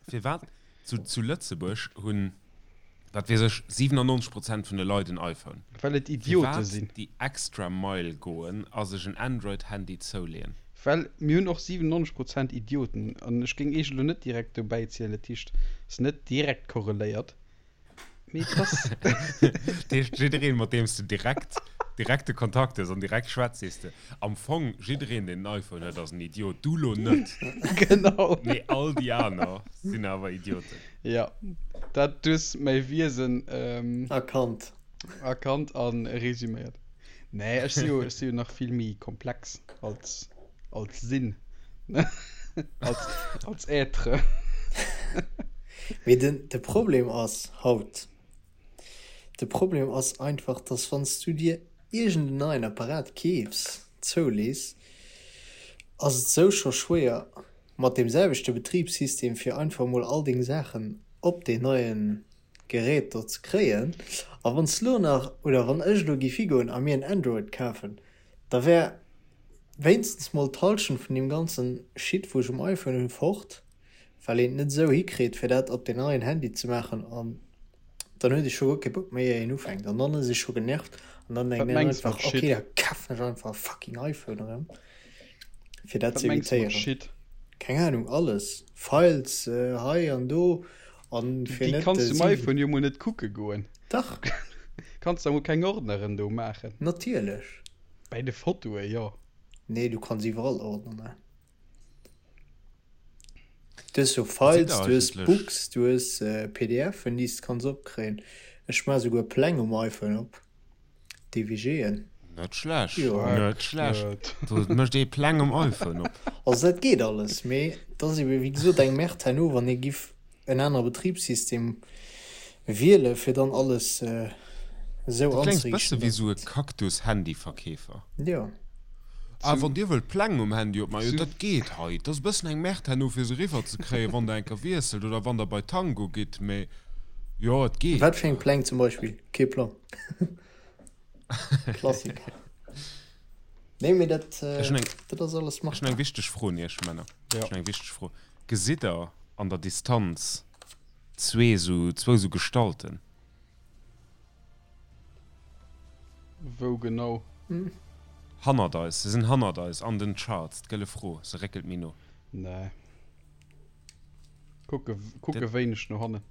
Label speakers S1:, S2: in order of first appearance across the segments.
S1: Firwat zu, zu Lëtzebuerg hunn, wat weess ech, 97 Prozent vun de Leit en iPhone?
S2: Well et Idiote sinn.
S1: Firwat déi extra Mile goen a sech en Android-Handy zouleeën?
S2: Well mir hunn och 97 Prozent Idioten. An ech géing iech elo net direkt dobäi zielen, dat heescht, ass net direkt korreléiert. Mee et ass.
S1: Dat heescht, jiddereen, mat deem s de direkt direkte Kontakt hues an direkt schwätz, sees de, am Fong, jiddereen, deen en iPhone huet, ass en Idiot. Du lo net.
S2: Genau.
S1: Mee all déi aner sinn awer Idioten.
S2: Jo, dat, du hues mäi Wiesen.
S3: Erkannt.
S2: Erkannt a resüméiert. Nee, ech si jo, ech si jo nach vill méi komplex als, als Sinn. Als, als Être.
S3: Mee den, de Problem ass haut, de Problem ass einfach, dass wann s du dir iergend en neien Apparat keefs, zoulees, ass et sou scho schwéier mat deem selwechte Betribssystem fir einfach mol all deng Saachen op deen neien Gerät do ze kréien. A wann s lo nach, oder wann ech elo géif higoen a mir en Android kafen, da wär wéinstens mol d'Halschent vun deem ganzen Shit wou ech um iPhone hunn fort, well een et net esou hikritt fir dat op den neien Handy ze maachen an dann huet ee scho guer kee Bock méi ier een ufänkt an dann ass ee scho genervt an dann
S2: Wat
S3: denkt een
S2: mengs mat
S3: einfach ok
S2: Shit?
S3: da kafen ech einfach e fucking iPhone erëm fir dat
S2: Wat
S3: ze
S2: mengs de mat
S3: evitéieren.
S2: Shit?
S3: Keng Ahnung, alles, Files hei an do an fir
S2: Déi
S3: net
S2: kanns du um
S3: 7.
S2: iPhone jo mol net kucke goen.
S3: Dach.
S2: Kanns da mol keng Ordneren do maachen.
S3: Natierlech.
S2: Bäi de Fotoe jo.
S3: Nee, du kanns iwwerall Ordner maachen. Du hues jo
S1: Sidd
S3: Files,
S1: der
S3: du hues
S1: eigentlech.
S3: Books, du hues PDFen, déi s de kanns opkréien. Ech maache souguer Pläng um iPhone op, DWGen.
S1: Net schlecht,
S3: Jo.
S1: net schlecht. Do mécht ee Pläng um iPhone op.
S3: Also dat geet alles, mee et ass ebe wéi gesot eng Merde herno, wann ee giff en anere Betribssystem wiele fir dann alles esou
S1: Du kléngs bësse
S3: anzeriichten,
S1: wéi
S3: dass
S1: sou e
S3: et.
S1: Cactus-Handyverkeefer.
S3: Jo.
S1: Ah, wann Dir wëllt Pläng um Handy opmaachen, jo
S2: Zu.
S1: dat geet hei. Et ass e bëssen eng Merde herno fir se eriwwer ze kréien, wann Der eng Kéier wiesselt oder wann Der bei Tango gitt, mee jo, et geet.
S3: Wat fir eng Pläng zum Beispill? Kee Plang. Klassiker. Nee, mee dat,
S1: Ech hunn eng,
S3: dat ass alles
S1: ech hunn eng
S3: machbar.
S1: wichteg Fro un Iech, Männer.
S2: Jo.
S1: Ech hunn eng wichteg Fro. Gesitt Der an der Distanz zwee sou, zwou sou Gestalten?
S2: Wou genau?
S1: Hannert eis, se sinn hannert eis an den Charts. D'Gëlle Fro, se réckelt méi no.
S2: Nee. Kucke, kucke wéineg no hannen.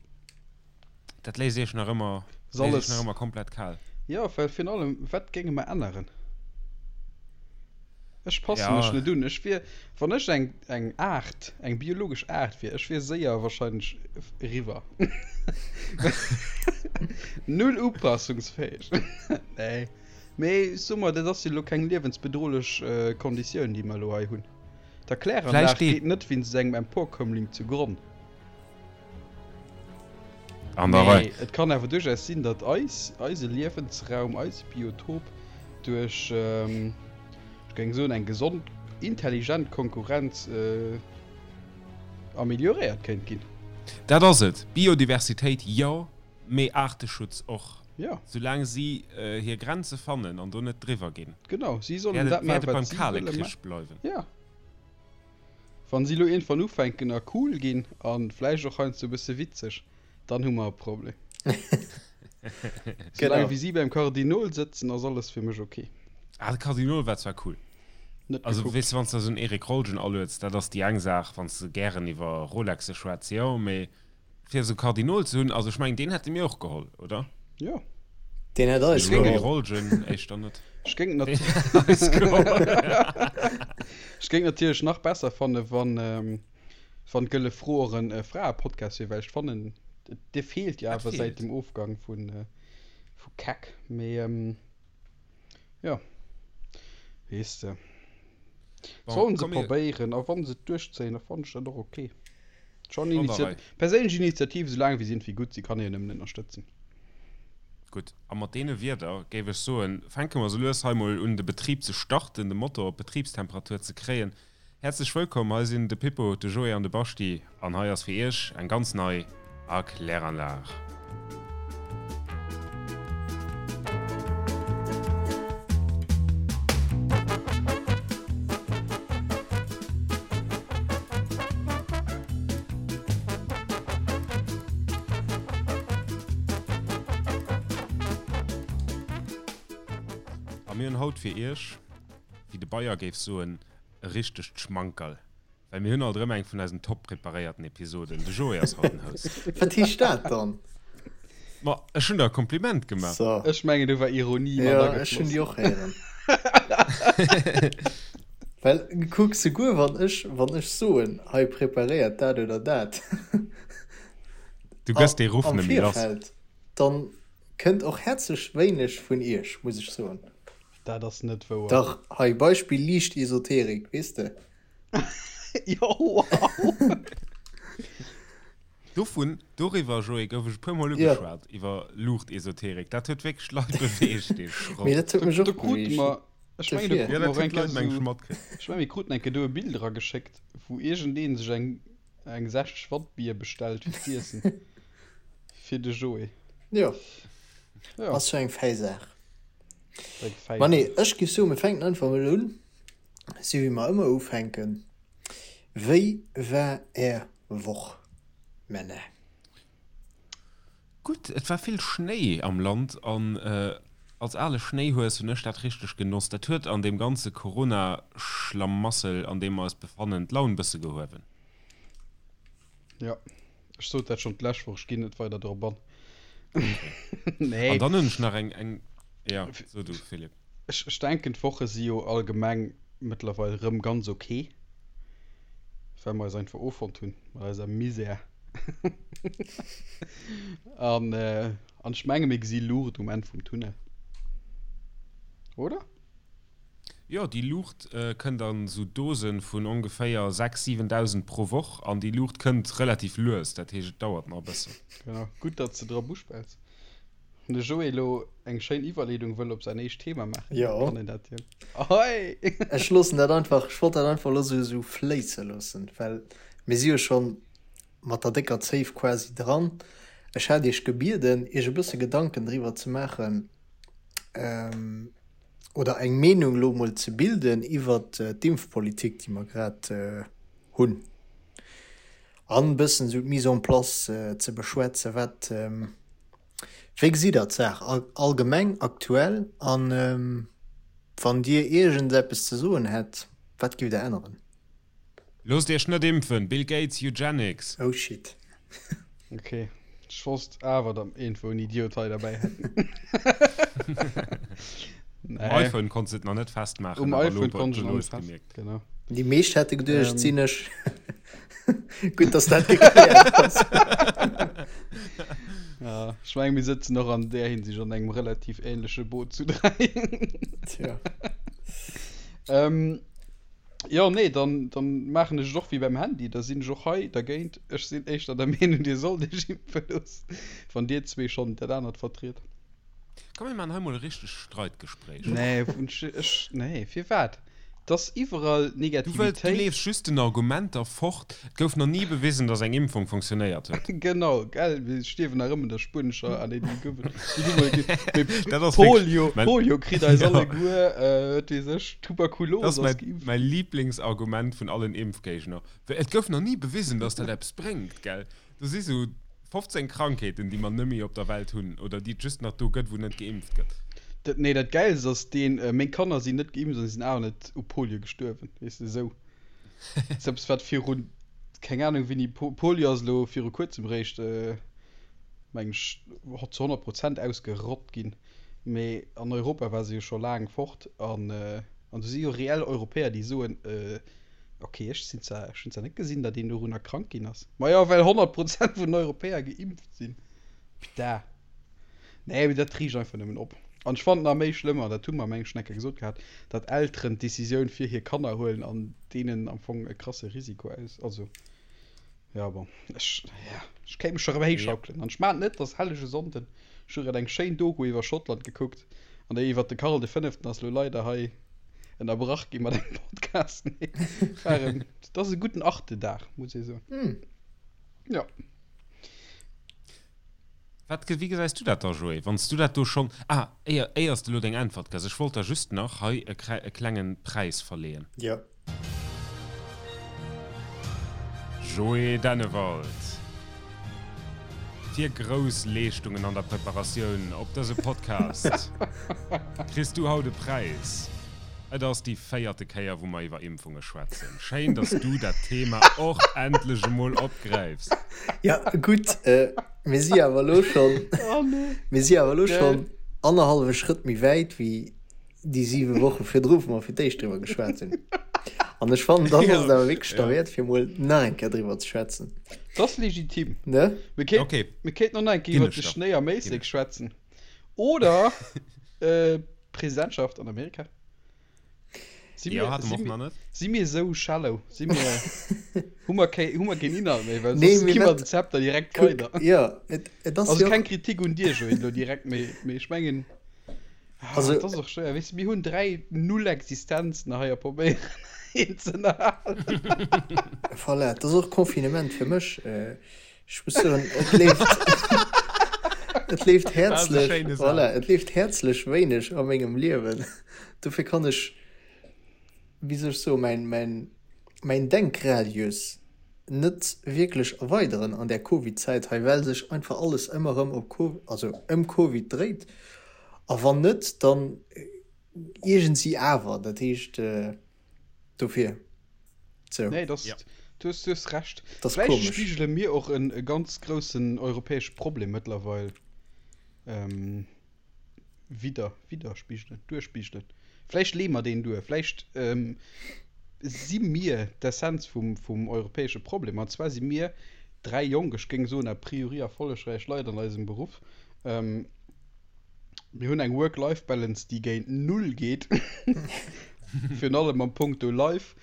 S1: Dat léisst iech nach ëmmer, léisst iech nach ëmmer komplett kal.
S2: Jo, well virun allem, wat géinge mer änneren? Ech passe
S1: Ja.
S2: mech net un. Ech wier, wann ech eng, eng Aart, eng biologesch Aart wier, ech wier séier wahrscheinlech eriwwer. Null upassungsfäeg. Nee. Mee so mer, dat ass jo elo keng liewensbedrohlech Konditioun, déi mer elo hei hunn. D'Erkläranlag
S1: Vläicht dee.
S2: geet net wéinst engem Emporkömmling zu Gronn.
S1: An der Rei.
S2: Mee et kann awer duerchaus sinn, datt eis, eise Liewensraum, eise Biotop duerch, ech géing soen, eng gesond, intelligent Konkurrenz amelioréiert kéint ginn.
S1: Dat ass et. Biodiversitéit jo, mee Aarteschutz och.
S2: Jo.
S1: Soulaang si hir Grenze fannen an do net driwwer ginn,
S2: Genau, si sollen
S1: wäert
S2: dat
S1: et, wäert
S2: maachen,
S1: et
S2: wat
S1: beim
S2: si
S1: Kale
S2: wëlle
S1: Krich
S2: maachen.
S1: bleiwen.
S2: Jo. Wann si lo iergendwann ufänken a cool ginn a vläicht och heiansdo e bësse witzeg, dann hu mer e Problem. Soulaang wéi si beim Kardinol sëtzen, ass alles fir mech ok.
S1: Ah, de Kardinol war zwar cool.
S2: Net
S1: Also,
S2: gekuckt.
S1: weess de, wann s de esou en Eric Rolgen alueds, dat ass déi eng Saach, wann s de gären iwwer Rolexe schwätz, jo, mee Fir esou Kardinol ze hunn, also ech mengen deen hätte mir och geholl, oder?
S2: Jo.
S3: Deen hätt eis
S1: geholl. Rolgen éischter net.
S2: Ech géing nat Ech géing natierlech nach besser fanne wann wann d'Gëlle Fro och en Fraepodcast wier, well ech fannen dee feelt jo awer säit dem Ofgang vu vu Keck. Mee jo, weess de. Sollen se probéieren a wann se et duerchzéien, da fannen ech dat och ok. Schon Initiat perséinlech Initiativ, soulaang wéi se iergendwéi gutt sinn, kann ee jo nëmmen ënnerstëtzen.
S1: Gutt, a mat deene Wierder géif ech soen, fänke mer sou lues hei mol un de Betrib ze starten, de Motor op Betribstemperatur ze kréien. Häerzlech wëllkomm, hei sinn de Pippo, de Joé an de Baschti an hei ass fir iech eng ganz nei Erkläranlag. mir hunn haut fir iech, wéi de Bayer géif soen, e richtegt Schmankerl. Well mir hunn alt erëm eng vun eisen top preparéierten Episoden. De Joé ass haut den Host.
S3: Wat heescht dat dann?
S1: Ma ech hunn der e Kompliment gemaach.
S3: So.
S2: Ech mengen do war Ironie mat
S3: Ja, ech hunn
S2: agefloss.
S3: déi och héieren. Well kuck, souguer wann ech, wann ech soen, hei preparéiert dat oder dat
S1: Du gëss dee Ruff
S3: am
S1: net méi lass.
S3: Virfeld, dann kënnt och häerzlech wéineg vun iech, muss ech soen.
S2: Dat ass net wouer.
S3: Dach, hei Beispill liicht Esoterik, weess de.
S2: Jo, wow!
S1: Dovun, doriwwer, Joé, gouf ech e puer Mol
S3: Ja.
S1: ugeschwat, iwwer Luuchtesoterik. Dat huet wierklech d'Leit beweegt, dee Schrott.
S3: Mee dat huet
S2: Do,
S3: mech
S2: do
S3: och
S2: krute
S3: beweegt.
S2: mer, ech mengen, do
S3: Dofir.
S1: Ja,
S2: krute mer
S1: dat
S2: och
S1: huet
S2: eng
S1: d'Leit,
S2: Kéier
S1: meng ech,
S2: esou,
S1: matkritt.
S2: ech menge mir kruten eng Kéier do e Bild erageschéckt, wou iergendee sech eng, eng 60 Watt Bier bestellt fir z'iessen. Fir de Joé.
S3: Jo,
S2: Ja,
S3: ass jo eng fäi Saach.
S2: eng fäi
S3: Ma nee,
S2: Saach.
S3: ech giff soen, mir fänken einfach mol un, sou wéi mer ëmmer ufänken. Wéi war är Woch, Männer?
S1: Gutt, et war vill Schnéi am Land an als ale Schnéihues hunn ech dat richteg genoss. Dat huet an deem ganze Corona-Schlamassel, an deem mer eis befannen, d'Laun bësse gehuewen.
S2: Jo, ech sot dat schonn d'lescht Woch, ech ginn net weider drop an.
S1: Okay.
S2: Nee.
S1: An dann hunn ech nach eng, eng, jo, so du, Philippe.
S2: Ech, ech denken, d'Woche si jo allgemeng mëttlerweil rëm ganz ok, well mer eis einfach offonnt hunn mat eiser Misär. An, an ech menge mir gesi Luucht um Enn vum Tunnel. Oder?
S1: Jo, déi Luucht kënnt an esou Dosen vun ongeféier 6, 7.000 pro Woch an déi Luucht kënnt relativ lues, dat heescht et dauert nach e bëssen.
S2: Genau, gutt datt s de drop uspells. Wann de Joé elo eng schéin Iwwerleedung wëll op säin éischt Thema maachen,
S3: Jo.
S2: kann en dat jo. Ahoi!
S3: Ech loossen dat einfach, ech wollt dat einfach elo sou sou fléisse loossen, well mir si jo schonn mat der décker Zéif quasi dran. Ech hat Iech gebieden, Iech e bësse Gedanken driwwer ze maachen, oder eng Meenung elo emol ze bilden iwwert d'Impfpolitik, déi mer grad hunn, an e bëssen esou d'Mise en place ze beschwätzen. Wat, wéi gesitt Der d'Saach allgemeng aktuell? An wann Dir iergendeppes ze soen hätt, wat giff Der änneren?
S1: Loosst iech net impfen! Bill Gates, Eugenics!
S3: Oh shit.
S2: Ok, ech wosst awer datt mer iergendwou en Idiot hei derbäi hätten.
S1: Um
S2: Nee.
S1: iPhone konns de et nach net festmaachen,
S2: Um
S1: awer elo
S2: iPhone konnt ech
S1: elo
S2: et nach
S1: hues
S2: net
S1: de
S2: fest,
S1: gemierkt.
S2: genau.
S3: Déi meescht hätte geduecht, et
S2: Ähm.
S3: sinn ech. Gutt, datt dat gekläert ass.
S2: Ja, ech menge mir sëtzen och an där Hinsicht an engem relativ ähnleche Boot zu 3.
S3: Tja.
S2: Ähm, Jo, nee, dann, dann maachen ech et och wéi beim Handy, da sinn ech och hei dergéint. Ech sinn éischter der Meenung, dir sollt iech impfe loossen, wann dir zwee schonn dat anert vertriet.
S1: Komm mir maachen hei mol e richtegt Streitgespréich.
S2: Nee, ech, nee, firwat? Et ass iwwerall
S1: Du wëlls, du
S2: Negativitéit.
S1: leefs just den Argumenter fort. Et gouf nach ni bewisen, dass eng Impfung funktionéiert huet.
S2: Genau, gell, mir stierwen nach ëmmer un der spuenescher, ah nee, déi gouf et, déi hu mol gi, mee
S1: Dat ass wierklech
S2: Polio,
S1: mein,
S2: Polio kritt eis
S1: ja,
S2: alleguer, wat weess ech, Tuberkulos
S1: dat ass
S2: ass
S1: mäi,
S2: geimpft.
S1: mäi Lieblingsargument vun allen Impfgéigner. Well et gouf nach ni bewisen, dass dat eppes bréngt, gell. Do si sou 15 Krankheeten, déi mer nëmme op der Welt hunn oder déi et just nach do gëtt, wou net geimpft gëtt.
S2: Dat, nee, dat Gäilst ass deen, meng Kanner sinn net geimpft an sinn awer net u Polio gestuerwen, weess de, esou. Dat ass eppes, wat virun, keng Ahnung wéini, Polio ass elo viru kuerzem eréischt, meng ech, zu 100 Prozent ausgerott ginn, mee an Europa war se jo scho laang fort an, an do si jo reell Europäer, déi soen, Ok, ech sinn zwar, ech hunn zwar net gesinn, datt een dorunner krank ginn ass. Ma jo, well 100 Prozent vun den Europäer geimpft sinn. Putain. Nee, mee dat riicht einfach nëmmen op. An ech fannen nach méi schlëmm, an dat hu mer meng ech schon eng Kéier gesot gehat, datt Elteren d'Decisioun fir hir Kanner huelen an deenen am Fong e krasse Risiko aus, also, ja bon, ech, ja, ech kéint mech scho rëm
S1: Ja.
S2: héichschaukelen. An ech maan et net, et ass hellege Sonnden, ech hu grad eng schéin Doku iwwer Schottland gekuckt, an déi iwwer de Karl de Fënneften ass lo leider hei ënnerbrach gi mat engem Podcast. Nee, war en, et ass e gudden Arte-Dag, muss ee soen. Ja.
S1: Wat, wéi gesäis du dat da, Joé, wann s du dat do schonn, ah, éier, éier s de elo deng Äntwert gëss, ech wollt der just nach hei e, e klengen Präis verleeën.
S3: Jo.
S1: Joé Dennewald. Fir grouss Leeschtungen an der Preparatioun op dëse Podcast kriss du haut e Präis. Et ass déi véierte Kéier, wou mer iwwer Impfunge schwätzen. Schéin, dass du dat Thema och endlech emol opgräifs.
S3: Ja, gutt, mir si awer elo schonn, mir si awer elo schonn annerhallwe Schrëtt méi wäit wéi déi siwe Woche virdru, wou mer fir d'éischt driwwer geschwat hunn. An ech fannen, dann ass et awer wierklech derwäert, fir emol nach eng Kéier driwwer ze schwätzen.
S2: Dat ass legitim.
S3: Ne?
S2: Mir kéint, okay. mir kéinten och nach eng Kéier iwwer de Schnéi am Éislek schwätzen. Oder d'Presidentschaft an Amerika. Si mir, ja, si mir, si mir esou shallow? Si mir, hu mer keng, hu mer keen Inhalt méi? Well nee, soss gi mer den Zepter direkt weider.
S3: Ja, et, et
S2: ass Also keng Kritik un dir, Joé, elo direkt, mee, mee ech mengen. Also, dat ass och schwéier. Weess de, mir hunn 3 Nullexistenzen hei a probéieren een ze ënnerhalen.
S3: Voilà, et ass och Confinement fir mech. Ech muss soen, et leeft, et leeft häerzlech, voilà, et leeft häerzlech wéineg a mengem Liewen. Dofir kann ech, wéi soll ech soen, mäin, mäin, mäin Denkradius net wierklech erweideren an där Covid-Zäit hei, well sech einfach alles ëmmer erëm op Co-, also ëm Covid dréit. A wann net, dann iergendsi awer. Dat heescht, dofir.
S2: Sou. Nee, das, ja. du hues, du hues Recht. Das Vläicht komisch. spigele mir och en e ganz groussen europäesche Problem mëttlerweil ähm, widder, widderspigelen, duerspigelen. Vläicht leeë mer deen duer. Vläicht ähm, si mir d'Essenz vum, vum europäesche Problem. An zwar si mir dräi jonk, ech géing soen a priori erfollegräich Leit an eisem Beruff. Ähm, Mir hunn eng Work-Life-Balance, déi géint Null geet. Virun allem am Punkto Life.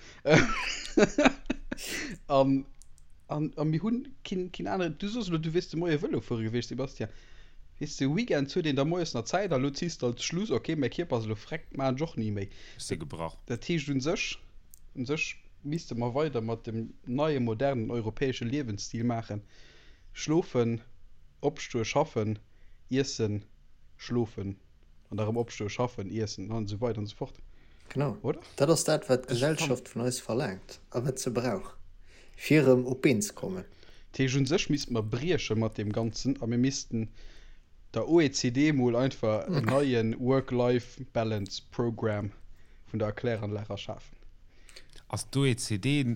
S2: An, an, a mir hunn keen, keen aneren. Du soos elo, du wiers de Moie Vëlo fuere gewiescht, Sebastian. Weess de, Weekends huet een da moies nach Zäit a lo ziss de als Schluss, ok, mäi Kierper ass elo freck, maachen ech och ni méi.
S1: Ech si gebrach.
S2: Dat heescht, u sech, u sech misste mer weider mat dem neie modernen europäesche Liewensstil maachen, schlofen, opstoe, schaffen, iessen, schlofen an da rëm opstoen, schaffen, iessen an esou weider an esou fort.
S3: Genau, Oder? Dat ass dat, wat d'Gesellschaft vun eis verlaangt a wat se brauch, fir erëm op d'Been ze kommen.
S2: Dat heescht, u sech misste mer brieche mat deem Ganzen a mir missten der OECD mol einfach en neie Work-Life-Balance Program vun der Erkläranlag erschafen.
S1: Ass d'OECD,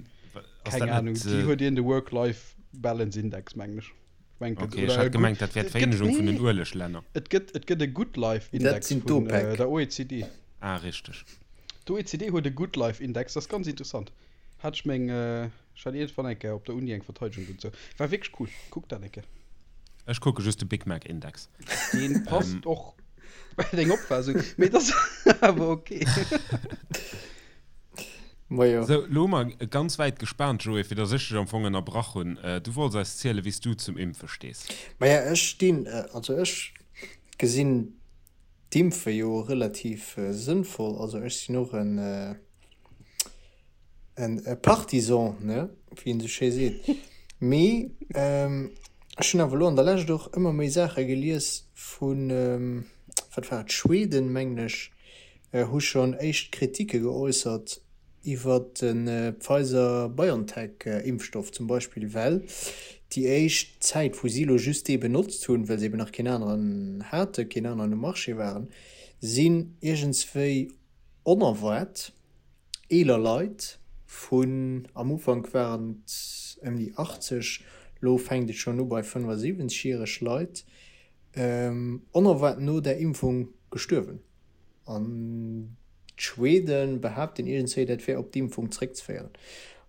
S2: ass Keng dat Ahnung, net. déi huet een de Work-Life-Balance Index, mengen ech.
S1: Okay, ech hat gemengt, dat wär d'Vereenegung vun den Ueleglänner.
S2: Et gëtt, et gëtt e Good Life Index vun der OECD.
S1: Ah, richteg.
S2: D'OECD huet e Good Life Index, dat ass ganz interessant. Hat ech meng, ech hat iergendwann eng Kéier op der Uni eng Verteidegung dozou. War wierklech cool. Kuck dat eng Kéier.
S1: Ech kucke just de Big Mac Index.
S2: Deen passt och bei deng Opfaassung, mee et ass awer okay.
S1: Majo. Sou, lo hu mer ganz wäit gespaant, Joé, fir dass ech dech am Fong ënnerbrach hunn. Du wollts eis zielen, wéi s du zum Impfe stees.
S3: Maja, ech stinn, also ech gesinn d'Impfe jo relativ sënnvoll. Also ech sinn och en, en Partisan, ne, wéi een esou schéi seet. Mee ech hunn awer elo an der Lescht och ëmmer méi Saache gelies vun, wat war et, Schweden, mengen ech, hu schonn éischt Kritike geäussert iwwer de Pfizer-BioNTech-Impfstoff zum Beispill, well déi éischt Zäit, wou si elo just dee benotzt hunn, well se eben nach keen aneren haten, keen aneren um Marché waren, sinn iergendswéi onerwaart eeler Leit vun, am Ufank waren et ëm déi 80, elo fänkt et schonn u bei 75 järeg Leit, onerwaart no där Impfung gestuerwen. An d'Schwede behaapten iergendswéi, dat wär op d'Impfung zréckzeféieren.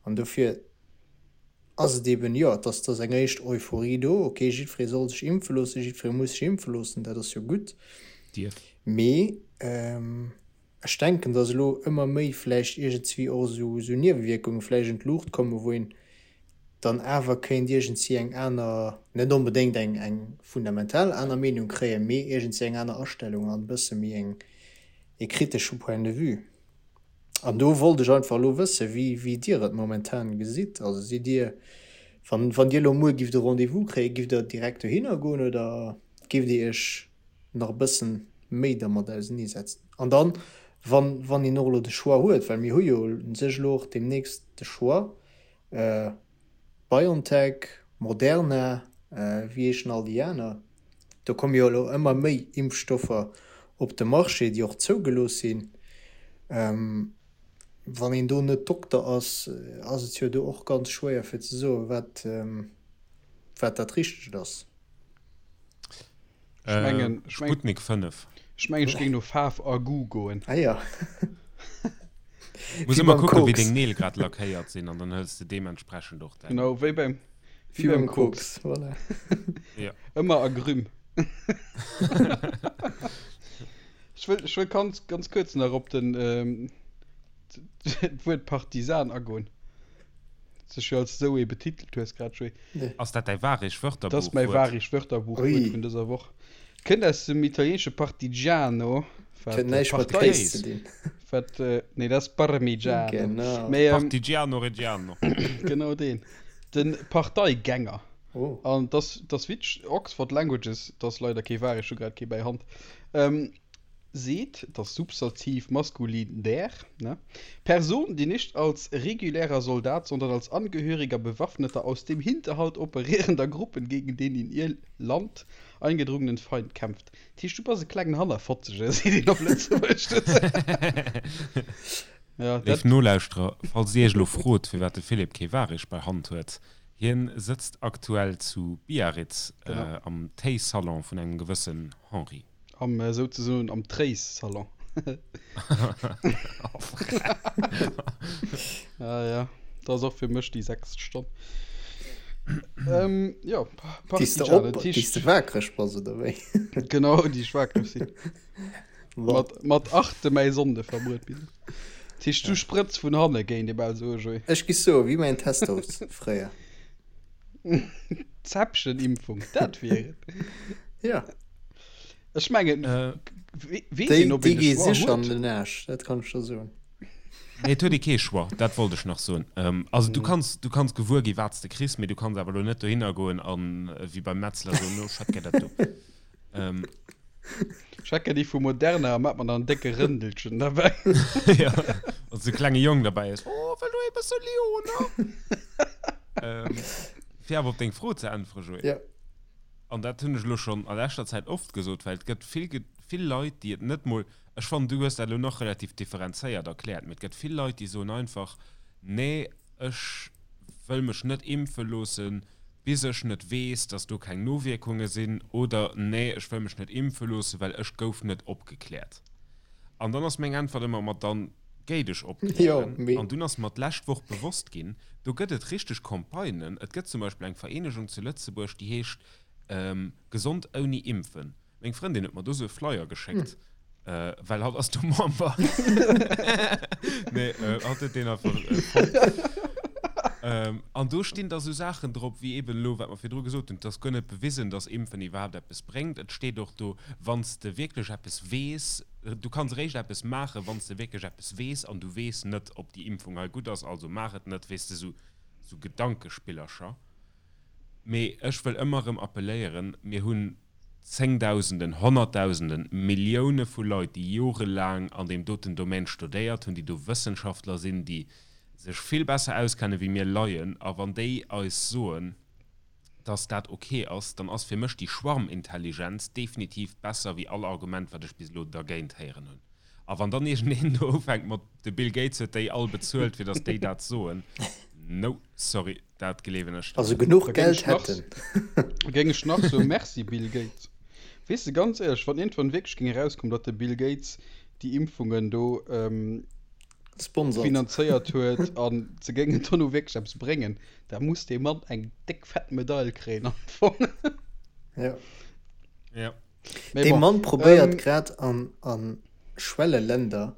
S3: An dofir ass et eben, jo, et ass, et ass eng éischt Euphorie do, okay, jiddweree soll sech impfe loossen, jiddweree muss sech impfe loossen, dat ass jo gutt.
S1: Dierf.
S3: Mee ech denken, datt elo ëmmer méi vläicht iergendswéi och esou Niewewierkunge vläicht un d'Luucht kommen, wou een dann awer kéint iergendsi eng aner, net onbedéngt eng eng fundamental aner Meenung kréien, mee iergendsi eng aner Astellung an e bësse méi eng ee kritesche Point de vue. An do wollt ech einfach elo wëssen, wéi wéi Dir et momentan gesitt. Also sidd Dir, wann wann Dir elo muer gifft e Rendez-vous kréien, gifft Der direkt dohinner goen oder gifft Dir Iech nach e bëssen méi dermat auseneesetzen? An dann, wann wann een och elo de Choix huet, well mir hu jo u sech elo och deemnächst de Choix, BioNTech, Moderna. Wéi heeschen all déi aner? Do komme jo elo ëmmer méi Impfstoffer op de Marché, déi och zougelooss sinn. Wann een do net Dokter ass, ass et jo do och ganz schwéier fir ze soen, wat, wat dat Richtegt ass.
S2: Ech mengen,
S1: ech mengen, Sputnik 5.
S2: Ech mengen, ech géing no Faarf a Goût goen.
S3: Ah ja.
S1: Muss ëmmer kucken, wéi deng Neel grad lackéiert sinn an dann hëls de deementsprechend och
S2: däin. Genau, wéi beim, wéi beim Koks.
S3: Voilà.
S1: Ja.
S2: Ëmmer Agrumes. Ech wëll, ech wëll ganz, ganz kuerz nach op den, d'Wuert Partisan agoen. Sech jo als esou ee betitelt hues grad, Joé.
S1: Ass dat däi Wahrig
S2: Wörterbuch-Wuert? Dat ass mäi Wahrig Wörterbuch-Wuert vun dëser Woch. Kënnt aus dem italieenesche partigiano,
S3: wat Huet näischt mat
S2: Partei, Kéis ze dinn. wat, nee, dat ass Parmigiano.
S3: Genau.
S2: Mee,
S1: Partigiano Reggiano.
S2: Genau deen. De Parteigänger.
S3: Oh.
S2: An dass, dass witzeg, Oxford Languages, dat ass leider kee Wahrig, ech hu grad kee bäi Hand, seet, das Substantiv maskulin der, ne, Person, die nicht als regulärer Soldat, sondern als Angehöriger bewaffneter, aus dem Hinterhalt operierender Gruppen gegen den in ihr Land eingedrungenen Feind kämpft. Dat heescht, du bass e klengen Hannerfotzege, seet een op Lëtzebuergesch dozou.
S1: Ja, Léif dat. Nolauschterer, falls Dir Iech elo frot, firwat de Philippe kee Wahrig bei Hand huet, Hien sëtzt aktuell zu Biarritz
S2: Genau.
S1: am Téisalon vun engem gewëssen Henri.
S2: Am souzesoen am Tréissalon. Ah ja, dat ass och fir mech déi sechst Stonn. Ähm, jo,
S3: Déi s de
S2: Partigiane,
S3: op,
S2: dat
S3: déi s
S2: heescht.
S3: de waakreg bass, oder wéi?
S2: Genau, déi ech waakreg sinn.
S3: Bon.
S2: Mat, mat achte mäi Sonnde verbruet bis. Dat heescht, du sprëtz vun hanne, géint ee bal soe, Joé.
S3: Ech gi soe wéi mäin Testos fréier.
S2: Zäppchen-Impfung, dat wier et.
S3: Ja.
S2: Ech mengen,
S1: Äh,
S2: weess
S3: Déi,
S2: een, ob
S3: déi
S2: een e
S3: gi
S2: Choix
S3: sécher an
S2: huet?
S3: den Aarsch, dat kann ech der soen.
S1: Nee, et huet ee kee Choix, dat wollt ech nach soen. Ähm, also du kanns, du kanns gewuer gi wat s de kriss, mee du kanns awer elo net dohinner goen an wéi beim Metzler soen, no, ech hätt gär dat do. Ähm,
S2: Ech hätt gär déi vu Moderna a mat mer dann en décke Rëndelchen derbäi.
S1: ja, wann s de klenge Jong derbäi hues, oh, wëll du ee bësse Lyoner? Ähm, fir awer op deng Fro ze äntweren, Joé.
S3: Ja.
S1: An dat hunn ech elo schonn a leschter Zäit oft gesot, well et gëtt vill, vill Leit, déi et net mol, ech fannen, du hues dat elo nach relativ differenzéiert erkläert, mee et gëtt vill Leit, déi soen einfach, Nee, ech wëll mech net impfe loossen, bis ech net weess, dass do keng Nowierkunge sinn, oder Nee, ech wëll mech net impfe loossen, well ech gouf net opgekläert. An dann ass meng Äntwert ëmmer, Ma dann géi dech opklären. An dunn ass mer d'lescht Woch bewosst ginn, do gëtt et richteg Campagnen. Et gëtt zum Beispill eng Vereenegung zu Lëtzebuerg, déi heescht Gesond ouni Impfen. Meng Frëndin huet mer do sou e Flyer geschéckt, well hatt ass do Member. Nee, hatt huet deen einfach fonnt. An do stinn da sou Saachen drop, wéi eben elo, wat mer virdru gesot hunn, et ass guer net bewisen, datt Impfen iwwerhaapt eppes bréngt. Et steet och do, wann s de wierklech eppes weess, du kanns eréischt eppes maachen, wann s de wierklech eppes weess, an du weess net, ob déi Impfung hei gutt ass, also maach et net, weess de, sou, sou Gedankespillercher. Mee ech wëll ëmmer erëm appelléieren, Mir hunn Zéngdausenden, Honnertdausenden, Millioune vu Leit, déi jorelaang an deem doten Domaine studéiert hunn, déi do Wëssenschaftler sinn, déi sech vill besser auskenne wéi mir Laien, a wann déi eis soen, dass dat ok ass, dann ass fir mech déi Schwarmintelligenz definitiv besser wéi all Argument, wat ech bis elo dergéint héieren hunn. A wann dann iergendeen do ufänkt mat, de Bill Gates huet déi all bezuelt, fir dass déi dat soen, no, sorry, dat gleewen ech
S3: dann Also genuch Geld hätt en.
S2: Da géing ech nach soen, Merci Bill Gates. Weess de, ganz éierlech, wann iergendwann wierklech géing erauskommen, datt de Bill Gates déi Impfungen do
S3: Sponsert.
S2: finanzéiert huet a se géingen dono wierklech eppes bréngen, da muss dee Mann eng déck fett Medail kréien am Fong.
S3: Ja.
S1: Ja.
S2: Mee
S3: Dee
S2: bon,
S3: Mann probéiert
S2: ähm,
S3: grad an a Schwelleländer,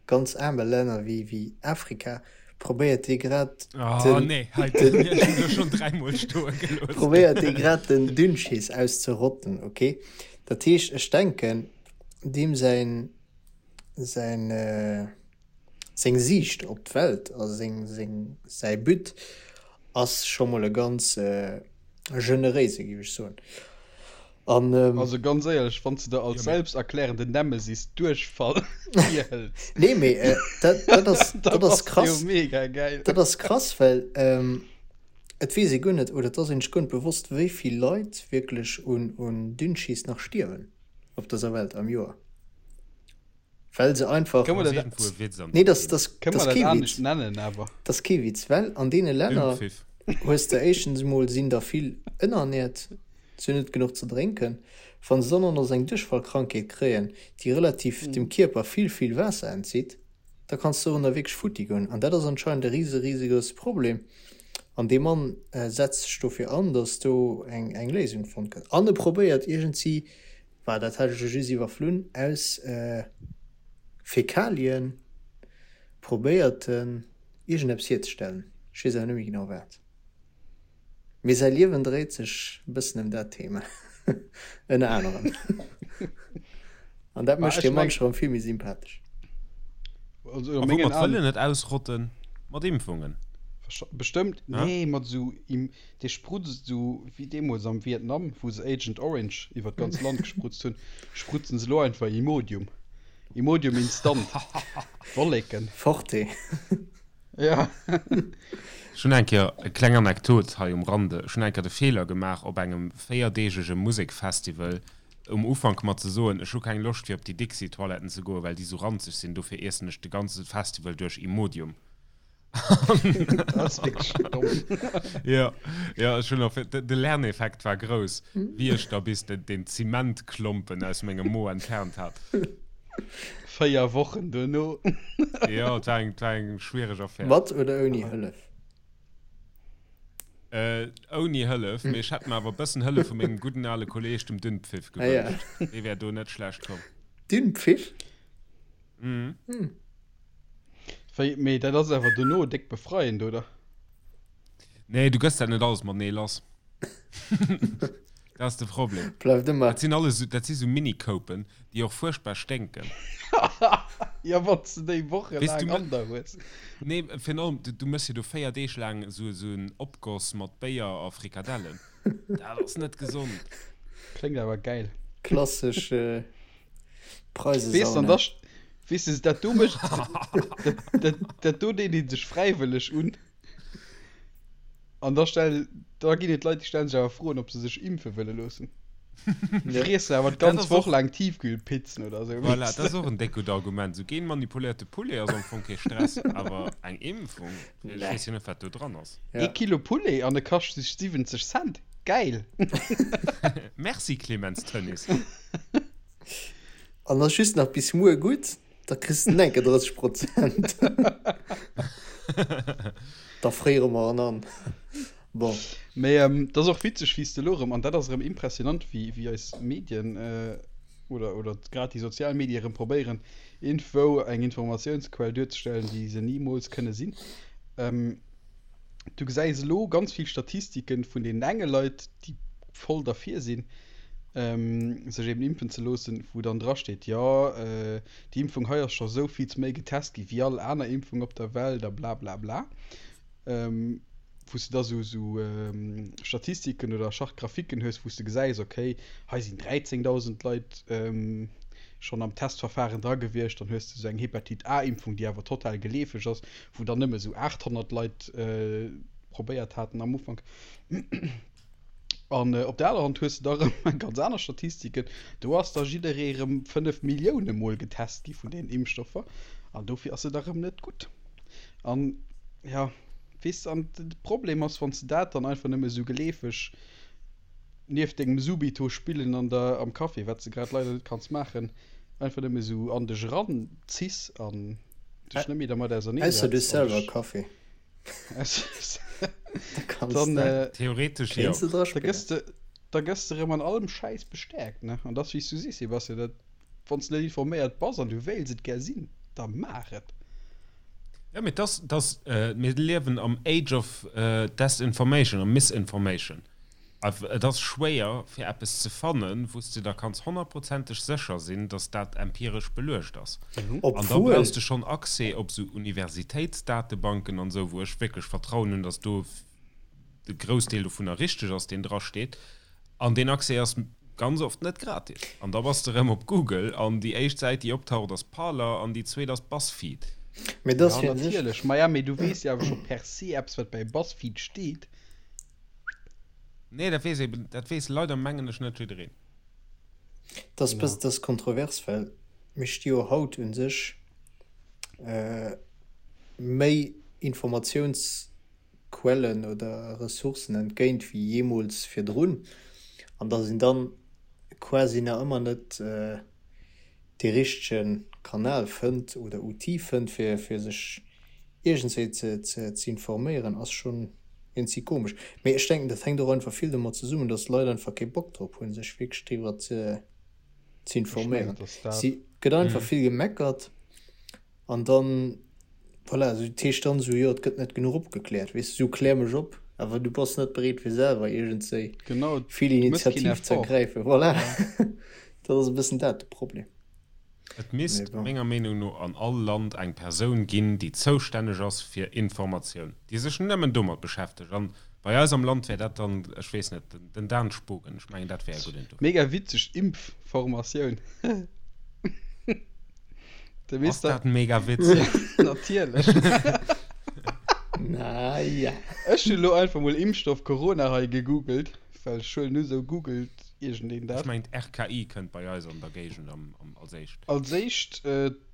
S3: ganz aarme Länner wéi wéi Afrika, probéiert dee grad
S1: Oh
S3: den
S1: nee, hei
S3: den
S1: den ech hunn elo schonn dräimol stoe gelooss.
S3: probéiert dee grad den Dünnschiss auszerotten, ok? Dat heescht, ech denken, deem säin säin seng Siicht op d'Welt a seng seng säi But ass scho mol e ganz generéise, géif ech soen. An
S2: Also ganz éierlech, wann s de der als
S1: Jo, mee
S2: selbsterklärende Nemesis Duerchfall virhëls,
S3: nee, mee dat dat ass
S2: da
S3: dat ass
S2: bass de jo
S3: krass.
S2: mega gäil.
S3: Dat ass krass, well. Et weess ee guer net, oder et ass een sech guer net bewosst, wéi vill Leit wierklech un Dünnschiss nach stierwen op dëser Welt am Joer, well se einfach.
S2: Kënne mer
S3: dat, nee, dat ass kee Witz, dat ass kee Witz, well an deene Länner hues de éischtens emol sinn der vill ënnerernäert, se hunn net genuch ze drénken, wa se dann och nach esou eng Duerchfallkrankheet kréien, déi relativ dem Kierper vill, vill Waasser entzitt. da kanns de dorunner wierklech futti goen. An dat ass anscheinend e rise risegrousse Problem. An dee Mann setzt sech dofir an, datt do eng eng Léisung fonnt gëtt. An e probéiert iergendsi, bah dat hat ech elo just iwwerflunn, aus Fäkalien probéiert en iergendeppes hierzestellen. Ech weess awer net méi genau wat. Mee säi Liewen dréit sech e bëssen ëm dat Thema, ënner anerem. An dat mécht hie munch erëm vill méi sympathesch.
S1: A woumat wëll en et ausrotten? Mat Impfungen?
S2: Bestëmmt, nee, mat esou, dee sprutzt esou wéi deemools am Vietnam, wou se Agent Orange iwwer d'ganz Land gesprutzt hunn, sprutzen se elo einfach Imodium. Imodium instant. Wolleken.
S3: Forte.
S2: Ja.
S1: Ech hunn eng Kéier, e kleng Anekdot hei um Rande, ech hunn eng Kéier de Feeler gemaach op engem véierdeegege Musekfestival um Ufank mat ze soen, ech hu keng Loscht fir op déi Dixi-Toiletten ze goen, well déi sou ranzeg sinn, dofir iessen ech de ganze Festival duerch Imodium.
S2: Dat ass wierklech domm.
S1: Jo, jo, ech hunn och, de Lerneffekt war grouss, wéi ech da bis den Zementklompen aus mengem Mo entfernt hat.
S2: 4 Wochen duerno.
S1: Jo, et war eng, et war eng schwiereg Affär.
S3: Mat oder ouni Hëllef?
S1: Äh, ouni Hëllef, mee ech hätt mer awer e bëssen Hëllef vu mengem gudden ale Kolleeg, dem Dünnpfiff,
S3: Ah ja.
S1: gewënscht. Dee wär do net schlecht komm.
S3: Dünnpfiff?
S1: Mhm.
S3: Hm.
S2: Wéi, mee dat ass awer dono déck befreiend, oder?
S1: Nee, du gëss dat net alles matenee lass. Dat ass de Problem.
S3: Bleift ëmmer.
S1: Dat sinn alles, dat si sou Mini-Koupen, déi och fuerchtbar sténken.
S2: Ja, wann s de déi wochelaang an der hues.
S1: Nee, virun allem, du, du méchs jo do 4 Deeg laang esou, esou en Opgoss mat Béier a Frikadellen. Dat ass net gesond.
S2: Kléngt awer gäil.
S3: Klassesch
S2: Weess an
S3: Preisesauna.
S2: da, weess de, dat do mécht, dat, dat, dat do deet ee sech fräiwëlleg un. An da stell, da ginn et Leit, déi stellen sech awer Froen, ob se sech impfe wëlle loossen.
S3: Ja.
S2: Friessen awer
S1: Dat
S2: d'ganz
S1: ass
S2: Woch
S1: och,
S2: laang Tiefkühlpizzen oder esou,
S1: voilà,
S2: weess
S1: dat ass
S2: de.
S1: och en déck gutt Argument. Esou genmanipuléierte Poulet ass am Fong kee Stress, awer eng Impfung, ech
S3: Nee.
S1: weess jo net, wat do dran ass.
S2: Ee
S3: Ja.
S2: Kilo Poulet an e kascht sech 70 Cent. Gäil!
S1: Merci Clemens Tönnies.
S3: An ass just nach bis muer gutt. Da kriss de enke 30 Prozent. Da fréiere mer en an. Bon.
S2: Mee et ass och witzeg, wéi s de elo erëm, an dat ass erëm impressionant, wéi, wéi eis Medien oder, oder grad déi sozial Medie erëm probéieren, iergendwou eng Informatiounsquell duerzestellen, déi se nimools kënne sinn. Du gesäis elo ganz vill Statistiken vun deenen enge Leit, déi voll derfir sinn, sech eben impfen ze loossen, wou dann drasteet, jo, déi Impfung hei ass scho sou vill méi getest gi wéi all aner Impfung op der Welt a bla bla bla. Wou s de da sou sou Statistiken oder Chart-graphiquen hues, wou s de gesäis, okay, hei sinn 13.000 Leit schonn am Testverfahren dra gewiescht, dann hues de sou eng Hepatite A-Impfung, déi awer total geleefeg ass, wou dann nëmme sou 800 Leit probéiert haten am Ufank. An op der anerer Hand hues de da erëm eng ganz aner Statistiken. Do ass da jidderee erëm 5 Millioune Mol getest gi vun deenen Impfstoffer an dofir ass et da erëm net gutt. An ja, weess de, an de Problem ass, wann s de dat dann einfach nëmme esou geleefeg nieft dengem Subito spillen an der, am Café, wat s de grad leider net kanns maachen, einfach nëmme esou an dech eranziss an dech net méi dermat
S3: Ausser du hues
S2: auserneesetz an
S3: selwer
S2: dech.
S3: Café.
S2: Dann, äh,
S1: Theoretesch jo.
S2: Da gëss de, da gëss de rëm an allem Schäiss bestäerkt, ne? An dass, wéi s du sees, Sebastian, dat, wann s de net informéiert bass an du wéils et gär sinn, da maach et.
S1: Jo, mee dass, dass, mir liewen am Age of Desinformation a Misinformation. Et ass schwéier, fir eppes ze fannen, wou s de der kanns honnertprozenteg sécher sinn, datt dat empiresch beluecht ass. An da brauchs de schonn Accès op esou Universitéitsdatebanken an esou, wou ech wierklech Vertrauen hunn, datt do de Groussdeel dovunner richteg ass, deen drasteet. An deen Accès ass ganz oft net gratis. An da bass de erëm op Google an déi éischt Säit, déi optaucht, ass Parler an déi zweet ass Buzzfeed.
S3: Mee dat ass
S2: Ja,
S3: fir sech.
S2: natierlech. Maja, mee du weess jo awer scho per se eppes, wat bei Buzzfeed steet.
S1: Nee, dat weess eben, dat weess leider mengen ech net jiddereen.
S3: Dat ass bëssen, dat ass kontrovers, well mir sti jo haut u sech méi Informatiounsquellen oder Ressourcen entgéint wéi jeemools virdrun, an datt een dann quasi nach ëmmer net dee richtege Kanal fënnt oder Outil fënnt, fir fir sech iergendswéi ze ze informéieren, ass schonn iergendwéi komesch. Mee ech denken, dat hänkt och einfach vill domat zesummen, datt d'Leit einfach kee Bock drop hunn, sech wierklech driwwer ze ze informéieren. Si gëtt einfach vill gemeckert an dann, voilà, esou dat heescht dann esou, jo et gëtt net genuch opgekläert, weess de, esou klär mech op, awer du bass net bereet fir selwer iergendswéi vill Initiativ ze ergräifen, voilà. Dat ass e bëssen dat de Problem.
S1: Et misst menger Meenung no an all Land eng Persoun ginn, déi zoustänneg ass fir Informatioun, déi sech nëmmen domat beschäftegt. An bei eis am Land wär dat dann, ech weess net, den Dan Spogen. Ech mengen, dat wär e gudden
S2: dofir. Mega witzeg Impfformatioun.
S1: Ass dat mega witzeg?
S2: Natierlech.
S3: Naja.
S2: Ech hunn elo einfach mol Impfstoff Corona hei gegoogelt, well ech huelen u sou googelt iergendeen
S1: dat. Ech mengen d'RKI kënnt bei eis an der Géigend als éischt.
S2: Als éischt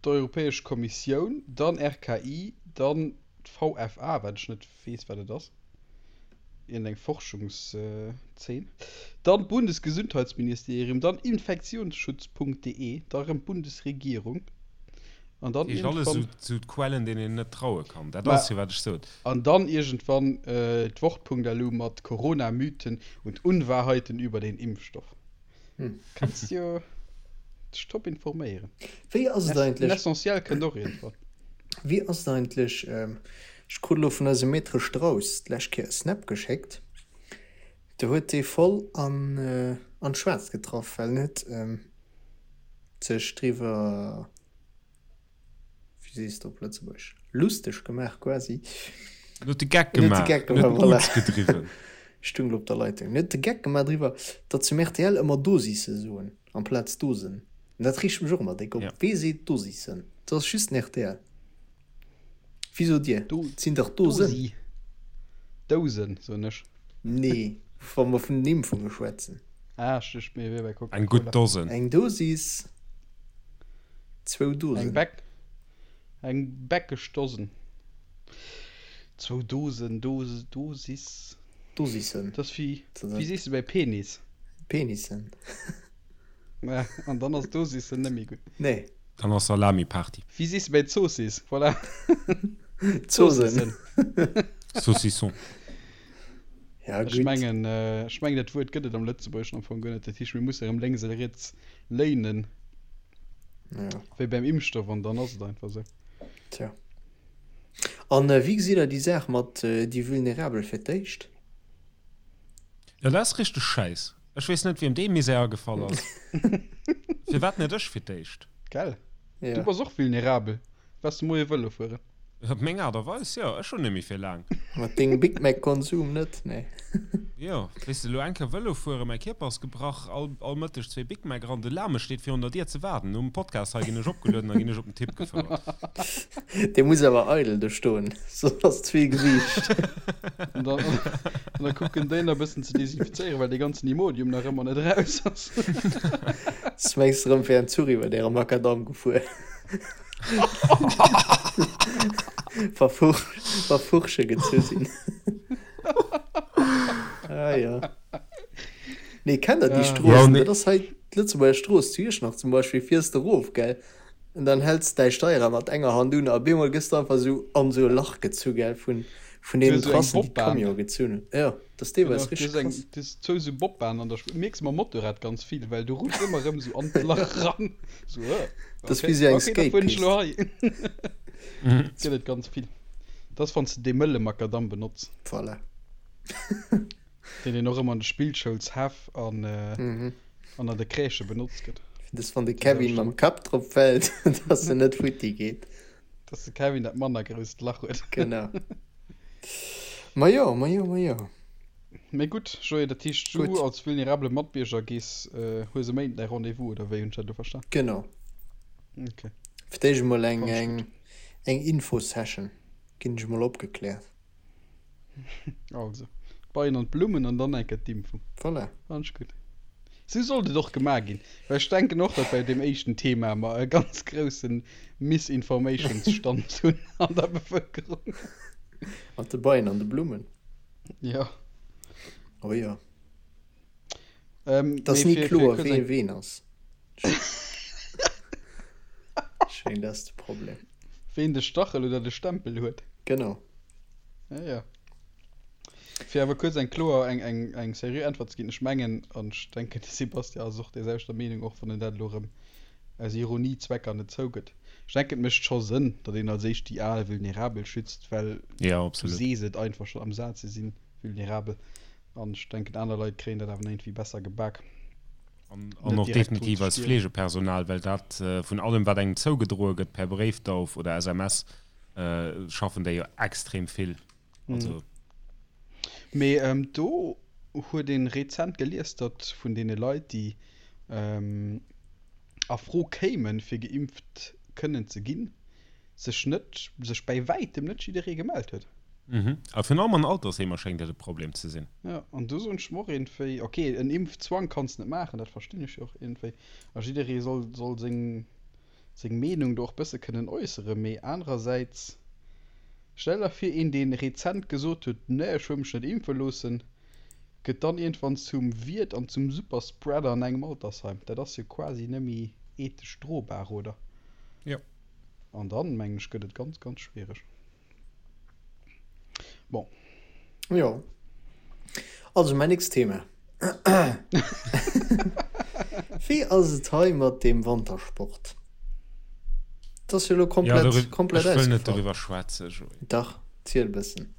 S2: d'Europäesch Kommissioun, dann RKI, dann d'VFA, wat ech net weess wat et ass, iergendeng Forschungszeen, dann d'Bundesgesundheitsministerium, dann infektionsschutz.de, da rëm d'Bundesregierung an dann
S1: Dat heescht alles
S2: iergendwann.
S1: esou d'Quellen deenen een net traue kann. Dat ass jo wat ech sot.
S2: An dann iergendwann d'Wort.lu mat Corona-Mythen und Unwahrheiten über den Impfstoff. Kanns jo dech top informéieren.
S3: Wéi ass et
S2: Den
S3: eigentlech?
S2: Essentiel kënnt och iergendwann.
S3: Wéi ass et eigentlech, ech krut elo vun eisem Maître Strauss d'lescht Kéier e Snap geschéckt, do huet dee voll an an d'Schwaarzt getraff, well en huet sech driwwer, wéi sees de op Lëtzebuergesch, lusteg gemaach quasi.
S1: En huet de Geck gemaach, en huet de
S3: Geck gemaach, voilà. Gedriwwen. Stung op der Leitung. En huet de Geck gemaach driwwer, datt se um rtl ëmmer Dosisse soen amplaz Dosen. An dat reegt mech och ëmmer déck op. Wee seet Dosissen? Dat ass just den rtl. Wéi sot Dir? Et sinn dach Dosen.
S2: Dosi. Dousen, soen ech.
S3: Nee, wa mer vun den Impfunge schwätzen.
S2: Ah, ech duecht mir wier bei
S1: Coca-Cola. Eng gutt Dosen.
S3: Eng Dosis, zwou Dosen.
S2: Eng Bäck, eng bäckeg Dosen. Zwou Dosen, Dose, Dosis.
S3: Dosissen.
S2: Dat ass wéi, wéi sees de bei Penis?
S3: Penissen.
S2: Ja, an dann ass Dosissen net méi gutt.
S3: Nee.
S1: Dann ass Salami-Party.
S2: Wéi sees de bei Zoossiss? Voilà.
S3: Zosen.
S1: Saucisson.
S3: Ja,
S2: Ech
S3: gutt.
S2: mengen, ech mengen dat Wuert gëtt et am Lëtzebuergeschen am Fong guer net. Dat heescht, mir musse erëm lénks a riets léinen,
S3: Ja.
S2: wéi beim Impfstoff, an dann ass et einfach esou.
S3: Tja. An wéi gesitt Der déi Saach mat déi Vulnerabel fir d'éischt?
S1: Jo, dat ass richteg Schäiss. Ech weess net, wiem dee Misär agefall ass. Firwat net ech fir d'éischt?
S2: Gell?
S3: Ja.
S2: Du bass och vulnerabel. Waars de moie Vëlo fueren?
S1: Op meng Aart a Weis, jo. Ech hunn net méi fir laang.
S3: Mat dengem Big Mac Konsum net, nee.
S1: Jo, weess de, elo eng Kéier Vëlo fueren, mäi Kierper ass gebrach, all, all Mëtteg zwee Big Mac eran, de Lame steet virun der Dier ze waarden. Nom Podcast hei ginn ech opgelueden a ginn ech op den Tipp gefouert.
S3: Dee muss awer eidel do stoen, soss ass ze vill Gewiicht.
S2: An dann, an da kucken déi nach e bëssen ze desinfizéieren, well dee ganzen Imodium nach ëmmer net eraus ass.
S3: S, Mengs de rëm wär en Zuch iwwer äre Makadamm gefuer? Wa Furche gezu sinn. Ah jo. Nee, kennt der déi Stroossen? Dat ass hei d'Lëtzebuerger Strooss zu Iechternach zum Beispill, fiers de erof, gell, an dann häls de däi Steierrad mat enger Hand un a op eemol gëss de einfach esou an esou e Lach gezu, gell, vun deenen Trassen, déi d'Camionë gezunn hunn. Jo. Dat ass deelweis
S2: Genau,
S3: richteg krass.
S2: Du hues zwou sou Bobbahnen an der Spuer. Mierks mam Motorrad ganz vill, well du rutschs ëmmer erëm sou an d'Lach ran. Sou, äh,
S3: Dat ass
S2: okay,
S3: wéi sou eng
S2: okay, da fueren ech
S3: Skatepist.
S2: lo hei. Gëtt et ganz vill. Dat ass, wann s de dee mëlle Makadamm benotz.
S3: Voilà.
S2: Deen een och ëmmer an de Spillschoulshäff an, an an de Crèchë benotzt gëtt.
S3: Dat ass, wann de
S2: Déi
S3: Kevin
S2: selwecht.
S3: mam Kapp drop fält, dass en net futti geet.
S2: Dass de Kevin dat manner grousst Lach huet.
S3: Genau. Majo, majo, majo.
S2: Mee gutt, Joé, dat heescht, du
S3: Gutt.
S2: als vulnerabele Matbierger gees, hues e Méinden däi Rendez-vous, oder wéi hunn ech dat elo verstan?
S3: Genau.
S2: Ok.
S3: Fir d'éischt emol eng,
S2: Fannen ech
S3: eng,
S2: gutt.
S3: eng Infosession. Ginn ech emol opgekläert.
S2: Also. D'Beien an d'Blummen an dann eng Kéier d'Impfung.
S3: Voilà.
S2: Fannen ech gutt. Sou sollt et och gemaach ginn, well ech denken och, datt bei deem éischten Thema mer e ganz grousse Misinformationsstand hunn an der Bevëlkerung.
S3: Mat de Beien an de Blummen.
S2: Jo.
S3: Oh jo. Et ass ni kloer, wee ween ass. Ech mengen, dat ass de Problem.
S2: Ween de Stachel oder de Stempel huet.
S3: Genau.
S2: Ja, ja. Fir awer kuerz eng kloer, eng, eng, eng seriö Äntwert ze ginn, Ech mengen, an ech denken, de Sebastian ass och där selwechter Meenung, och wann en dat elo erëm aus Ironiezwecker net zougëtt, ech denken, et mécht scho Sënn, datt een als éischt déi al Vulnerabel schützt, well
S1: Ja,
S2: du
S1: absolut.
S2: sees et einfach schonn am Saz, se si vulnerabel. An ech denken, aner Leit kréien dat awer nach iergendwéi besser gebak.
S1: An, an och definitiv eist Fleegepersonal, well dat vun allem, wat engem zougedroe gëtt per Bréifdauf oder SMS, schaffen déi jo extrem vill. Also.
S2: Mee do huet ee rezent gelies, datt vun deene Leit, déi a Fro kéimen, fir geimpft kënnen ze ginn, sech net, sech bäi wäitem net jidderee gemellt huet.
S1: Mhm. A virun allem an Altersheemer schéngt dat e Problem ze sinn.
S2: Jo, an do soen ech mer och iergendwéi, ok, en Impfzwang kanns net maachen, dat verstinn ech jo och iergendwéi, a jidderee soll, soll seng, seng Meenung do och bësse kënnen äusseren, mee anerersäits, stell der vir, een dee rezent gesot huet, nee, ech wëll mech net impfe loossen, gëtt dann iergendwann zum Wiert an zum Superspreader an engem Altersheim. Dat ass jo quasi net méi ethesch drobar, oder?
S1: Jo.
S2: An dann, mengen ech, gëtt et ganz, ganz schwiereg. Bon.
S3: Jo. Also, mäin nächst Thema. Wéi ass et hei mat deem Wantersport? Dat ass jo elo komplett,
S1: ja,
S3: komplett
S1: ech wëll net doriwwer schwätzen, Joé.
S3: Dach, ziel e bëssen.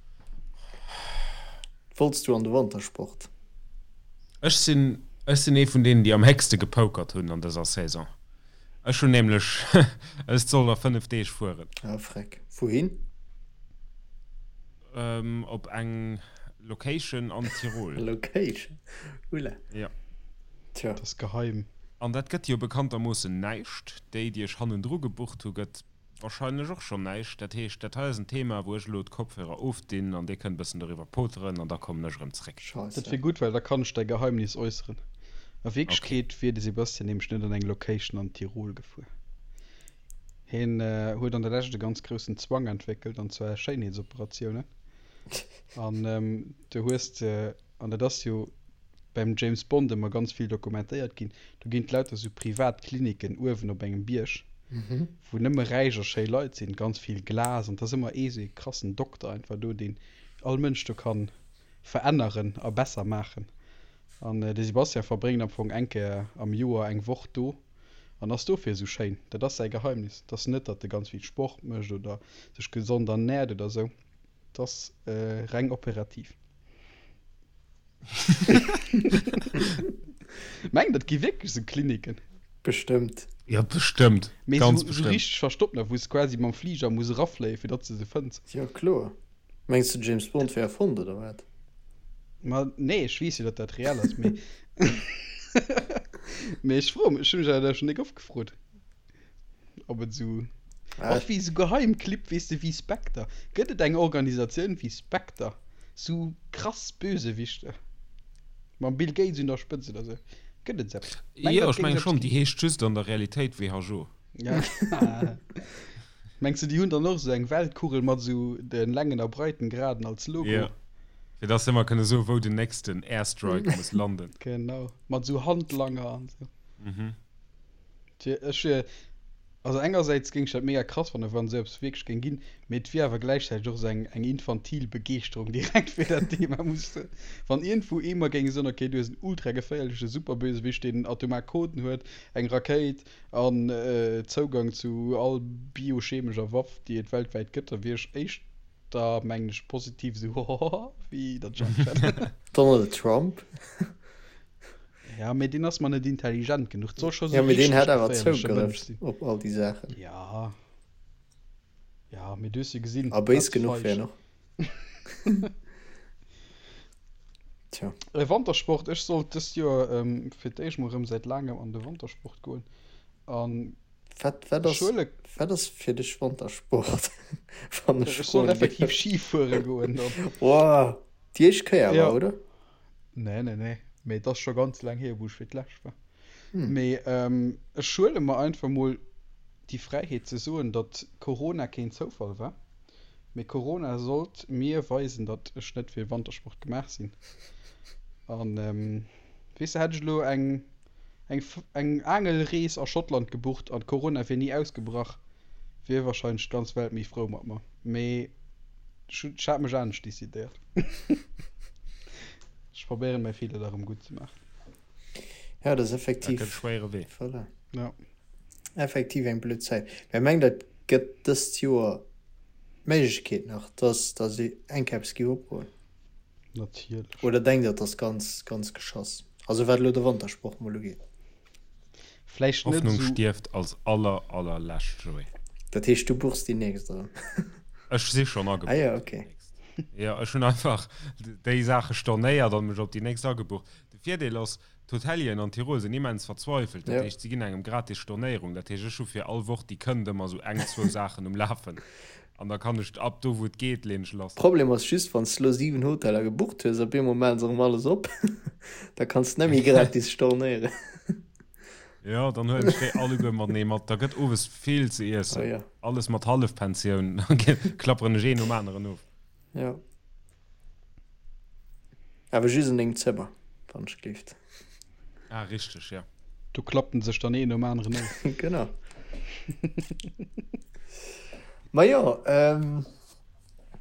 S3: Wollts du an de Wantersport?
S1: Ech sinn, ech sinn ee vun deenen, déi am héchste gepokert hunn an dëser Saison. Ech hunn nämlech, ech soll a 5 Deeg fueren.
S3: Ah freck. Wouhin?
S1: Op eng Location an Tirol.
S3: Location? Oula.
S1: Jo.
S3: Tja.
S2: Dat ass geheim.
S1: An dat gëtt jo bekanntermoossen näischt. Déi, déi ech hannendru gebucht hu gëtt Wahrscheinlech och schonn näischt. Dat heescht, dat hei ass en Thema, wou ech elo d'Kopfhörer ofdinn an dir kënnt e bëssen doriwwer poteren an da kommen ech erëm zréck.
S2: Dat wier gutt, well da kann ech däi Geheimnis äusseren. A Wierklechkeet wier de Sebastian nämlech net an eng Location an Tirol gefuer. Hien huet an der Lescht e ganz groussen Zwang entwéckelt, an zwar Schéinheetsoperatiounen. An du hues de, an dat ass jo beim James Bond ëmmer ganz vill dokumentéiert ginn, do ginn et lauter sou privat Kliniken uewen op engem Bierg, wou nëmme räich a schéi Leit sinn, ganz vill Glas an et ass ëmmer ee sou ee krassen Dokter einfach do, deen all Mënsch do kann veränneren a besser maachen. An de Sebastian verbréngt am Fong eng Kéier am Joer eng Woch do an ass dofir esou schéin. Dat ass säi Geheimnis. Et ass net, datt e ganz vill Sport mécht oder sech gesond ernäert oder sou. Et ass reng operativ. Mengt der, et gi wierklech esou Kliniken?
S3: Bestëmmt.
S1: Jo, bestëmmt.
S2: Mee
S1: Ganz
S2: esou
S1: bestëmmt.
S2: richteg verstoppt nach, wou s de quasi mam Fliger muss erafléien, fir datt s de se fënns.
S3: Jo, kloer. Mengs de, James Bond wär erfonnt, oder wat?
S2: Ma nee, ech weess jo, datt dat reell ass, mee mee ech froe mech, ech hu mech awer dat schonn déck oft gefrot. Ob et esou och wéi esou Geheimclibb, weess de, wéi Spectre. Gëtt et eng Organisatioun wéi Spectre? Sou krass Bösewichter mam Bill Gates un der Spëtzt oder sou? Gëtt et esou eppes?
S1: Mengt Jo, ech menge schonn. Déi heescht just an der Realitéit WHO.
S2: Ja. Mengs de, déi hunn dann och esou eng Weltkugel mat esou de Längen a Breitengraden als Logo?
S1: Jo, fir dass se ëmmer kënne soen, wou den nächsten Airstrike muss landen.
S2: Genau, mat esou Handlanger an esou.
S1: Mhm.
S2: Ech wier, also engersäits géing ech dat mega krass fannen, wann esou eppes wierklech géing ginn, mee et wier awer gläichzäiteg och esou eng eng infantil Begeeschterung direkt fir dat Thema, muss ech soen. Wann iergendwou ee mer géing soen, okay, du hues en ultra geféierleche Superbösewicht, deen atomar Coden huet, eng Rakéit an Zougang zu all biochemescher Waff, déi et weltwäit gëtt, da wier ech éischter, mengen ech, positiv esou hohoho wéi datt ech Angscht hätt.
S3: Donald Trump.
S2: Ja, mee deen ass mer net intelligent genuch. Et soll scho
S3: sou Ja, mee deen hätt awer Zougrëff op all déi Saachen.
S2: Ja. Ja, mee du hues jo gesinn.
S3: A béis genuch wär en och. Tja.
S2: Wantersport, Ech sollt dëst Joer fir d'éischt mol erëm säit laangem an de Wantersport goen. An
S3: Wat, wat ass, wat ass fir dech Wantersport? Wann
S2: ech Ech soll effektiv Ski fuere goen dann.
S3: Wow. Déi éischt Kéier awer, oder?
S2: Nee, nee, nee. Mee et ass scho ganz laang hier, wou ech fir d'lescht war. Mee ech huele mer einfach mol déi Fräiheet ze soen, datt Corona keen Zoufall war. Mee Corona sollt mir weisen, datt ech net fir Wantersport gemaach sinn. An weess de, hätt ech elo eng eng eng Aangelrees a Schottland gebucht an Corona wier ni ausgebrach, wier wahrscheinlech d'ganz Welt méi frou mat mer. Mee ech hunn, ech hat mech anescht decidéiert. Ech probéieren mäi Feeler da rëm gutt ze maachen.
S3: Ja, dat ass effektiv.
S1: Dat gëtt e schwéiere Wee.
S3: Voilà.
S2: Ja.
S3: Effektiv eng blöd Zäit. Mä mengt der, et gëtt dëst Joer d'Méiglechkeet nach, dass dass eng Kéier eppes géif opgoen?
S2: Natierlech.
S3: Oder denkt der, et ass ganz, ganz geschoss? Also wat elo de Wantersport mol ugeet.
S2: Vläicht net
S1: Hoffnung
S2: esou.
S1: stierft als aller, allerlescht, Joé.
S3: Dat heescht, du buchs déi nächst erëm?
S1: Ech si schonn
S3: Ah
S1: agebucht
S3: jo,
S1: fir déi
S3: okay.
S1: nächst. Jo, ech hunn einfach déi Saache stornéiert an mech op déi nächst agebucht. De Virdeel ass, D'Hotelieren an Tirol sinn immens verzweifelt, dat heescht, si ginn engem gratis Stornéierung. Dat heescht, ech hu fir all Woch, déi kënnt, ëmmer esou eng, zwou Saachen um Lafen an da kann ech ab do, wou et geet, leen ech lass.
S3: Problem ass just, wann s de lo 7 Hoteller gebucht hues, op eemol maachen se erëm alles op, da kanns de net méi gratis stornéieren.
S1: Jo, dann huelen ech déi alleguer matenee mat. Da gëtt owes vill ze iessen, alles mat Hallefpensioun, da klapperen ech een nom aneren of.
S3: Jo. Awer just an dengem Zëmmer, wann ech gleeft.
S1: Ah, richteg, ja.
S2: Do klappt en sech dann een nom aneren of.
S3: Genau. Ma jo, ähm.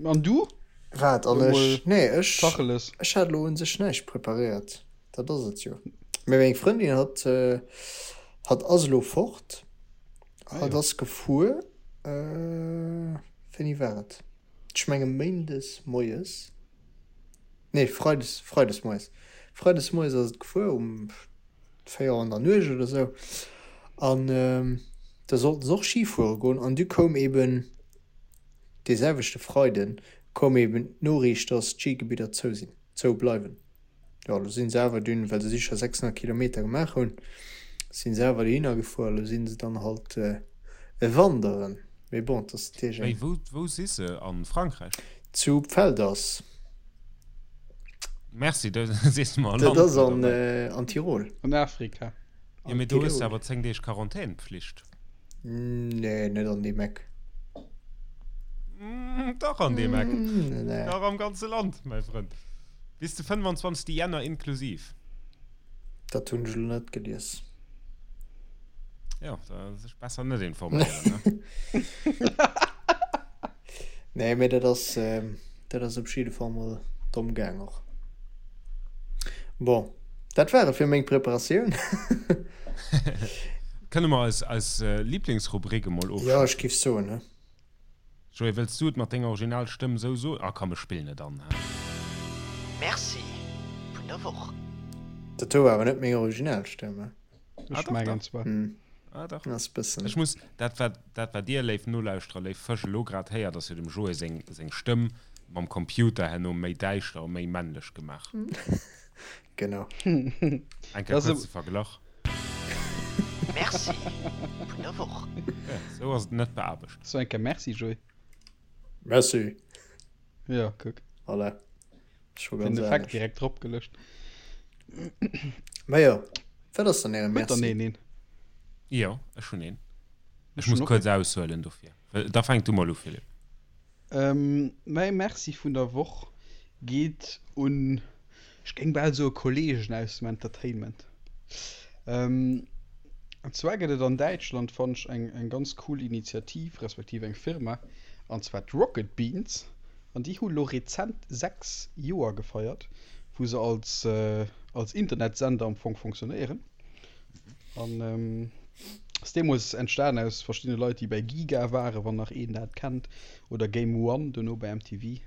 S2: An du?
S3: Wat, an ech? Nee, ech.
S2: Tacheles.
S3: Ech hat elo un sech näischt preparéiert. Dat ass et jo. Mee meng Frëndin hat, hat ass elo fort. Hat ass gefuer, wéini war et? Ech menge méindes moies, nee freides, freides moies, freides moies ass et gefuer um 4 Auer an der Nuecht oder sou an da sollten se och Ski fuere goen an du koum eben dee selwechte Freiden koum eben d'Noriicht, dass d'Skigebidder zou sinn, zou bleiwen. Jo, elo sinn se awer dunn, well se sicher 600 Kilometer gemaach hunn, sinn se awer dohinner gefuer. Elo sinn se dann halt wanderen. Mee bon, et ass natierlech
S1: eng. Wéi, wou si se? A Frankräich?
S3: Zu Pfelders.
S1: Merci, da sees de mer e
S3: Dat
S1: Land
S3: ass
S1: do
S3: an,
S1: derbäi.
S3: an Tirol.
S2: An Afrika.
S1: Jo, mee do hues de awer 10 Deeg Quarantänpflicht.
S3: Nee, net an deem Eck.
S1: Dach an deem Eck. Dach am ganze Land, mäi Frënd. Bis de 25. Jänner inklusiv.
S3: Dat hunn ech elo net gelies.
S1: Jo, da sech besser net informéieren, ne?
S3: Nee, mee dat ass, dat ass op jidde Fall mol domm gaang och. Bon, dat war et fir meng Preparatioun.
S1: Kënne mer eis eis Liblingsrubrik emol
S3: ofschafen? Jo, ech giff soen, he.
S1: Joé, wëlls du et mat denger original Stëmm sou soen? Ah komm, ech spillen et an, he.
S4: Merci vun der Woch.
S3: Dat do war awer net meng original Stëmm, he.
S1: Ah,
S2: Ech
S1: dach,
S2: mengen
S1: dach.
S2: zwar.
S1: Ah, dach.
S3: Ass bëssen.
S1: Ech muss, dat wat, dat wat dir, léif Nolauschterer, léif Fësch, elo grad héiert, ass jo dem Joé seng, seng Stëmm mam Computer herno méi däischter a méi männlech gemaach.
S3: Genau.
S1: Eng Kéier
S2: Das
S1: kuerze Verglach.
S4: Merci vun der Woch.
S1: Ja, sou ass et net beaarbecht.
S2: So eng Kéier Merci, Joé.
S3: Merci.
S2: Ja, kuck.
S3: Voilà. Scho
S2: Den
S3: ganz
S2: Effekt
S3: anescht.
S2: direkt drop gelëscht.
S3: Ma jo, wat ass dann äre
S2: Huet dann
S3: Merci?
S2: een een?
S1: Jo, ech hunn een. Ech
S2: Ech hunn
S1: muss
S2: och
S1: kuerz
S2: een.
S1: aushuelen dofir. Da fänk du mol u, Philippe.
S2: Ähm, mäi Merci vun der Woch geet un, ech géing bal soe Kollegen aus dem Entertainment. Ähm, an zwar gëtt et an Däitschland, fannen ech, eng, eng ganz cool Initiativ, respektiv eng Firma, an zwar d'Rocket Beans. An déi hu lo rezent 6 Joer gefeiert, wou se als, als Internetsender am Fong fonctionnéieren. An ass deemools entstan aus verschiddene Leit, déi bei Giga waren, wann nach een dat kennt, oder Game One, dono bei MTV.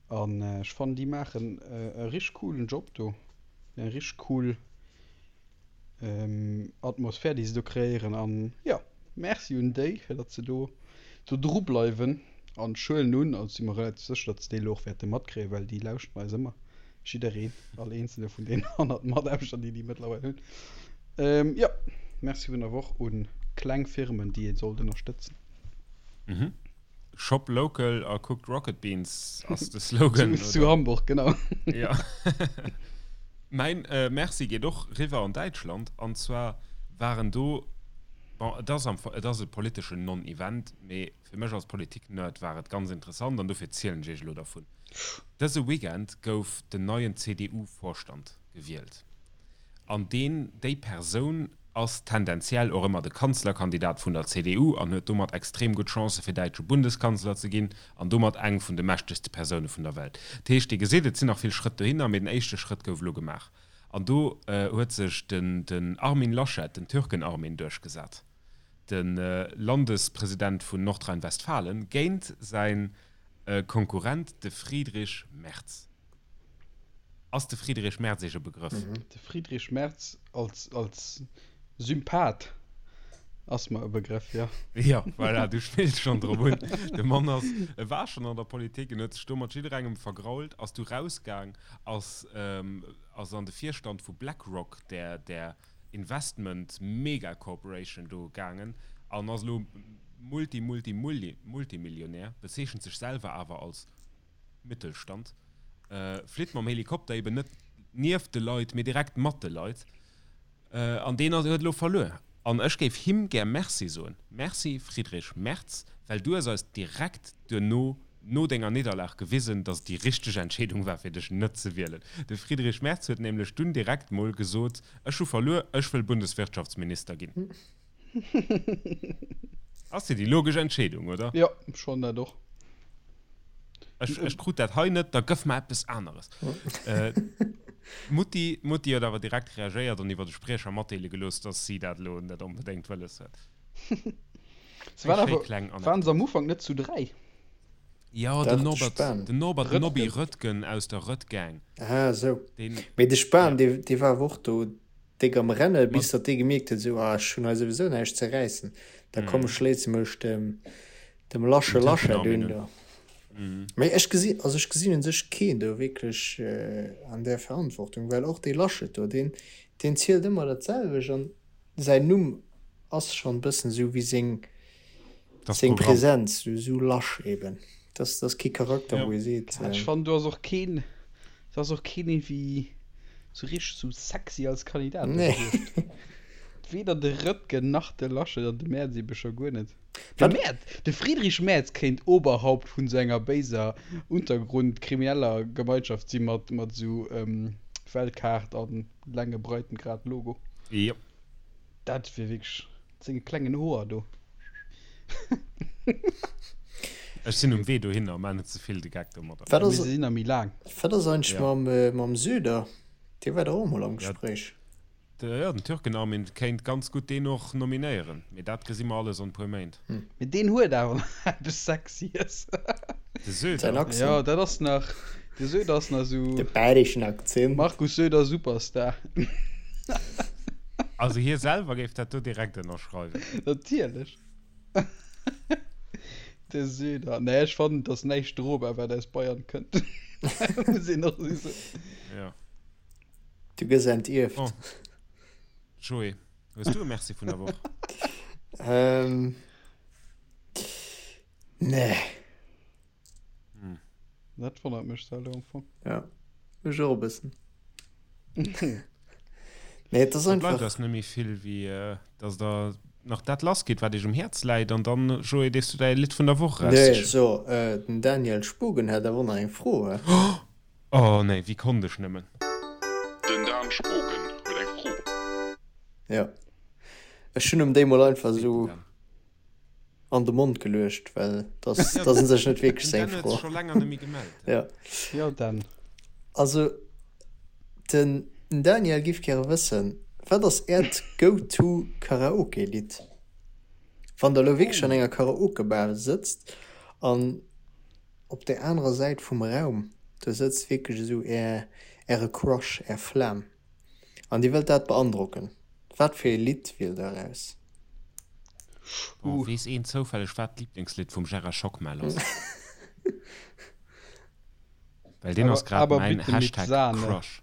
S2: An ech fannen, déi maachen e richteg coolen Job do, eng richteg cool Atmosphär déi se do kreéieren an jo Merci un déi fir datt se do do dru bleiwen an ech huelen un, also si mer relativ sécher datt se déi elo och wäerte matkréien, well déi lauschteren eis ëmmer, jiddereen, all eenzele vun deenen 100 Mataarbechter déi déi mëttlerweil hunn. Jo Merci vun der Woch un kleng Firmen déi ee sollt ënnerstëtzen.
S1: Mhm. Shop local a kuckt Rocket Beans ass de Slogan.
S2: Zu, zu Hamburg, genau.
S1: Ja. Mäin äh, Merci geet och riwwer an Däitschland. An zwar waren do, bon, et ass am, et ass e politeschen Non-Event, mee fir mech als Politik-Nerd war et ganz interessant an dofir zielen ech iech elo dervun. Dëse Weekend gouf den neien CDU-Vorstand gewielt. An deen, déi Persoun ass tendenziell och ëmmer de Kanzlerkandidat vun der CDU an huet domat extrem gutt Chancë fir däitsche Bundeskanzler ze ginn an domat eng vun de mächtegste Persoune vun der Welt. Dat heescht, Dir gesitt, et sinn nach vill Schrëtt dohinner, mee den éischte Schrëtt gouf elo gemaach. An do huet sech den Armin Laschet, den Türken-Armin, duerchgesat, de Landespresident vun Nordrhein-Westfalen, géint säi Konkurrent, de Friedrich Merz. Ass de Friedrich Merz Iech e Begrëff?
S2: De Friedrich Merz als, als Sympath ass mer e Begrëff, jo.
S1: Jo, voilà, du spills schonn drop un. De Mann ass, e war schonn an der Politik, en huet sech do mat jidderengem vergrault, ass du rausgaang, ass, ass an de Virstand vu BlackRock, där, där Investment Mega Corporation do gaangen an ass elo Multi, Multi, Multi, Multimillionär, bezeechent sech selwer awer als Mittelstand, flitt mam Helikopter eben net nieft de Leit, mee direkt mat de Leit. An deen huet elo verluer. An ech géif him gär Merci soen. Merci Friedrich Merz, well du hues eis direkt duerno, no denger Nidderlag gewisen, datt et déi richteg Entscheedung war, fir dech net ze wielen. De Friedrich Merz huet nämlech dunn direkt mol gesot, Ech hu verluer, ech wëll Bundeswirtschaftsminister ginn. Ass jo déi logesch Entscheedung, oder?
S2: Jo, schonn dat och.
S1: Ech, ech krut dat hei net, da gëff mer eppes aneres. D'Mutti, d'Mutti huet awer direkt reagéiert an iwwer de Spriecher matdeele gelooss, dass si dat elo net onbedéngt wëlles huet.
S2: Se waren awer, waren se am Ufank net zu 3?
S1: Jo, den Norbert, den Norbert Nobby Röttgen aus der Röttgang.
S3: Ah, esou. Mee de Spahn, dee, dee war awer och do déck am Renne bis datt dee gemierkt huet, esou, ah ech hunn hei souwisou näischt ze räissen, da komm ech schléisse mech dem dem Lasche Laschet un do. Mee ech gesi, also ech gesinn un sech keen do wierklech an där Verantwortung, well och dee Laschet do, deen deen zielt ëmmer dat selwecht an säin Numm ass schonn e bëssen esou wéi seng seng Präsenz, esou lasch eben. Dat ass kee Charakter, wou ee seet.
S2: Ech fannen do ass och keen, do ass och keen iergendwéi sou richteg sou sexy als Kandidat do gewiescht. Weder de Röttgen nach de Laschet an de Merz ebe scho guer net. De Merz, de Friedrich Merz kéint Oberhaupt vun sou enger béiser Untergrund-krimineller Gemeinschaft si mat mat sou Weltkaart an Länge Breitengrad Logo.
S1: Jo.
S2: Dat wier wierklech. Senge klengen Hoer do.
S1: Ech sinn um Wee dohinner, maach net ze vill de Geck domadder.
S3: Wat ass,
S2: Mee se sinn nach méi laang.
S3: wat ass eigentlech mam, mam Söder? Dee war dach och emol am Gespréich.
S1: Jo, den Türken-Armin kéint ganz gutt deen och nominéieren, mee dat gesi mer alles an e puer Méint.
S2: Mee deen huet awer nach eppes Sexyes.
S1: De Söder?
S3: Säin Accent.
S2: Jo, dat ass nach, de Söder ass nach esou.
S3: De bayreschen Akzent.
S2: Markus Söder Superstar.
S1: Also hie selwer géif dat do direkt ënnerschreiwen.
S2: Natierlech. De Söder. Nee, ech fannen, et ass näischt drobar, wat aus Bayern kënnt. Muss een och esou soen.
S1: Jo.
S3: Du gëss entierft.
S1: Bon. Joé, hues du e Merci vun der Woch?
S3: Ähm. Nee.
S2: Hm. Dat wonnert mech zwar elo am Fong.
S3: Ja, mech och e bëssen. Nee, et ass
S1: Da bleift
S3: einfach.
S1: eis net méi vill, wéi dass der nach dat lass gitt, wat iech um Häerz läit. An dann, Joé, dierfs du däi Lidd vun der Woch
S3: Nee,
S1: eraussichen.
S3: so, den Daniel Spogen hätt awer och nach eng Fro, he?
S1: Oh nee, wéi konnt ech nëmmen?
S5: Den Dan Spogen huet eng Fro.
S3: Ja. Ech hunn em déi mol einfach esou an de Mond geluecht, well dat ass dat ass un sech net wierklech
S1: Den
S3: seng
S1: Dan huet
S3: Fro.
S1: sech scho länger net méi gemellt.
S3: Ja.
S2: Jo, Dan.
S3: Also, den Daniel giff gäre wëssen, wat ass äert Go-to Karaoke-Lidd? Wann der elo wierklech an enger Karaoke-Bar sëtzt an op där anerer Säit vum Raum, do sëtzt wierklech esou är äre Crush, är Flam an dir wëllt dat beandrocken, wat fir ee Lidd wielt der eraus?
S1: Oh, weess een zoufälleg wat d'Liblingslidd vum Gérard Schockmel ass? Well deen ass grad mäin Hashtag Crush.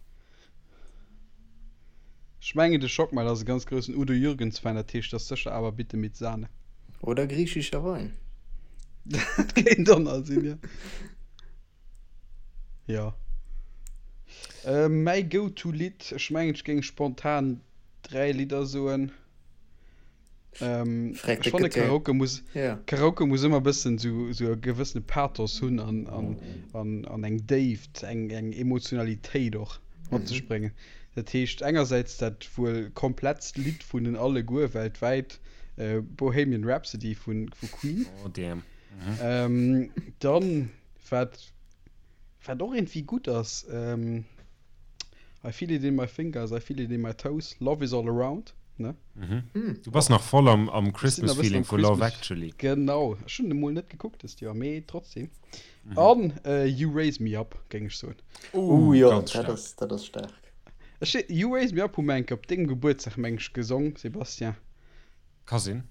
S2: Ech mengen de Schockmel ass e ganz groussen Udo Jürgens Fan, dat heescht ass sécher Aber bitte mit Sahne.
S3: Oder griechischer Wein.
S2: Dat kéint och nach sinn, jo. Jo. Mäi Go-to-Lidd, ech mengen ech géing spontan 3 Lidder soen. Ähm,
S3: Frag
S2: ech
S3: de
S2: fanne
S3: Gëtter.
S2: Karaoke muss,
S3: Ja.
S2: Karaoke muss ëmmer bëssen sou, sou e gewëssene Pathos hunn an, an, an, an eng Déift, eng, eng Emotionalitéit och mat sech bréngen. Dat heescht engersäits dat wuel komplettst Lidd vun den alleguer weltwäit, äh, Bohemian Rhapsody vun, vu Queen.
S1: Oh damn.
S2: Ähm, dann, wat, wat och iergendwéi gutt ass, ähm, I feel it in my fingers, I feel it in my toes, love is all around, ne?
S1: Du bass nach voll am, am
S2: Ech sinn nach e bëssen
S1: Christmas-Feeling
S2: am
S1: vu Love
S2: Christmas.
S1: Actually.
S2: Genau, ech hunn emol net gekuckt dëst Joer, mee trotzdem. An You Raise Me Up, géing ech soen.
S3: Uh, jo,
S1: ganz
S3: dat
S1: staark.
S3: ass, dat ass staark.
S2: Ech, You Raise Me Up hu mer eng Kéier op dengem Gebuertsdag, meng ech, gesong, Sébastien.
S1: Ka sinn.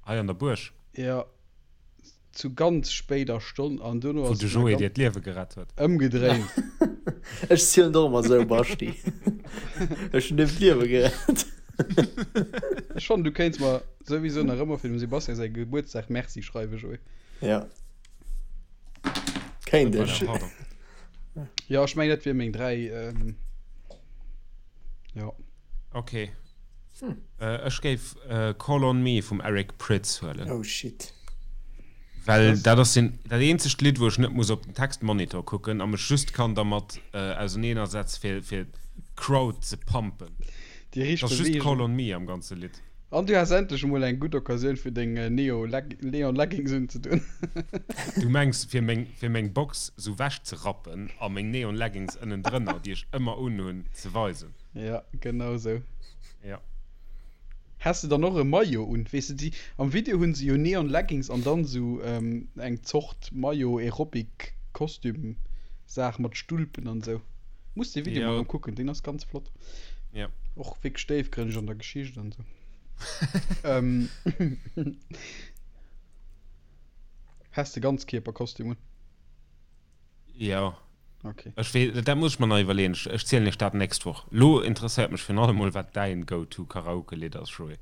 S1: Hei an der Buerg.
S2: Jo, zu ganz spéider Stonn an dono
S1: Wou
S2: ass
S1: de
S2: et mer
S1: Joé
S2: ganz
S1: dir d'Liewe gerett huet.
S2: ëmgedréint.
S3: Ech zielen och ëmmer esou, Baschti. Ech hunn dir d'Liewe gerett.
S2: Ech fannen, du kéints mer souwisou nach ëmmer fir dem Sebastian säi Gebuertsdag Merci schreiwen, Joé.
S3: Ja. Kéint ech.
S1: Voilà, pardon.
S2: Jo, ech mengen, dat wier meng 3, jo.
S1: Ok. Ech géif Call on Me vum Eric Prydz huelen.
S3: Oh shit.
S1: Well dat ass den, dat eenzegt Lidd, wou ech net muss op den Textmonitor kucken a mech just kann dermat auserneenersetze fir, fir d'Crowd ze pumpen.
S2: Déi
S1: Et
S2: riicht
S1: ass just
S2: Beweegung.
S1: Call on Me am ganze Lidd.
S2: An du has endlech emol eng gutt Occasioun fir deng Neo Neon Leggings unzedoen.
S1: Du mengs fir meng, fir meng Box sou wech ze rappen a meng Neon Leggings ënnendrënner, déi ech ëmmer unhunn, ze weisen.
S2: Ja, genau sou.
S1: Ja.
S2: Has de dann och e Maillot un? Weess de, déi am Video hunn se jo Neon Leggings an dann sou eng Zort Maillot Aerobic Kostüm Saach mat Stulpen an sou. Muss dee Video
S1: Ja.
S2: mol erëm kucken, deen ass ganz flott.
S1: Ja.
S2: Och wierklech déifgrënneg an der Geschicht an sou. ähm, Has de Ganzkierperkostüm un?
S1: Jo.
S2: Okay.
S1: Ech wee, dat muss ech mer nach iwwerleeën. Ech, ech zielen iech dat nächst Woch. Lo interesséiert mech virun allem mol, wat däin Go-to-Karaoke-Lidd ass, Joé.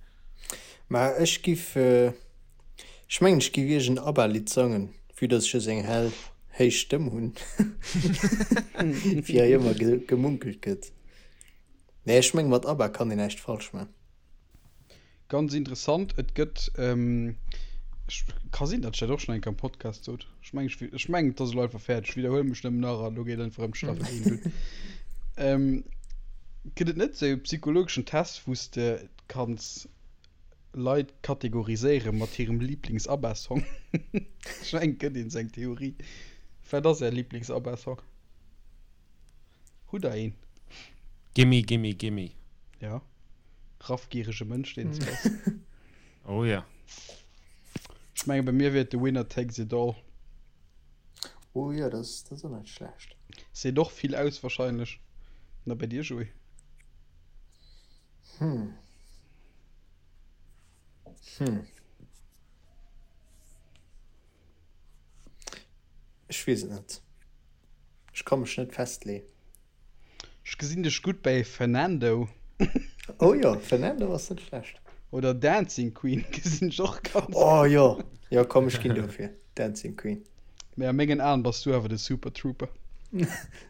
S3: Ma ech giff, ech mengen ech giff iergend ABBA-Lidd sangen, vue dass ech esou eng hell, héich Stëmm hunn, wéi hei ëmmer gemunkelt gëtt. Nee, ech meng mat ABBA kann een näischt falsch man.
S2: Ganz interessant, et gëtt, ech, ka sinn, datt ech dat och schonn eng Kéier am Podcast sot, ech meng, ech, ech mengen, et ass elo einfach fäerdeg, ech widderhuele mech nëmmen nach an elo geet einfach ëm d'Staffel 1 dunn. Gëtt et net esou e psychologeschen Test, wou s de kanns Leit kategoriséiere mat hirem Liiblings-ABBA-Song? Ech mengen, et gëtt een esou eng Theorie. Wat ass Är Liiblings-ABBA-Song? Hutt Der een?
S1: Gimme, gimme, gimme.
S2: Ja. Raffgierege Mënsch, deen s bass.
S1: Oh ja.
S2: Ech menge bei mir wier et The Winner Takes It All.
S3: Oh jo, dat ass och net schlecht.
S2: Seet och vill aus wahrscheinlech. Na bei dir, Joé?
S3: Hm. Hm. Ech weess et net. Ech ka mech net festleeën.
S2: Ech gesinn dech gutt bäi Fernando.
S3: Oh jo, Fernando ass net schlecht.
S2: Oder Dancing Queen gesinn ech och ganz gutt.
S3: Oh jo, jo komm ech ginn dofir, Dancing Queen.
S2: Mee a mengen Aen bass du awer de Super Trooper.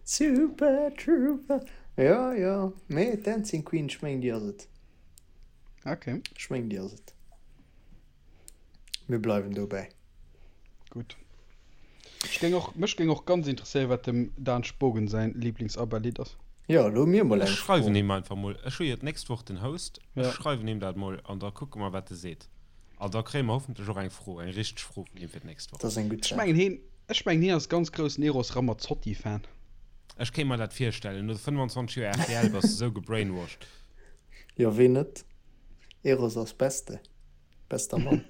S3: Super Trooper, jo jo, mee Dancing Queen, ech mengen déi ass et.
S2: Ok.
S3: Ech mengen déi ass et. Mir bleiwen dobäi.
S2: Gutt. Ech géing och, mech géing och ganz interesséieren, wat dem Dan Spogen säin Lieblings-ABBA-Lidd ass.
S3: Jo, elo hu mir mol eng
S1: Ech schreiwen
S3: Fro.
S1: him einfach mol. Ech hu jo d'nächst Woch den Host. Ech
S2: Ja.
S1: schreiwen him dat mol an da kucke mer, wat e seet. An da kréie mer hoffentlech och eng Fro, eng richteg Fro vun him fir d'nächst Woch.
S3: Dat ass eng gutt
S2: Ech
S3: Saach.
S2: mengen heen, ech mengen hien ass ganz groussen Eros Ramazzotti-Fan.
S1: Ech kéint mer dat virstellen. No 25 Joer rtl bass de sou gebrainwashed.
S3: Jo, ween net? Eros ass Beste. Bester Mann.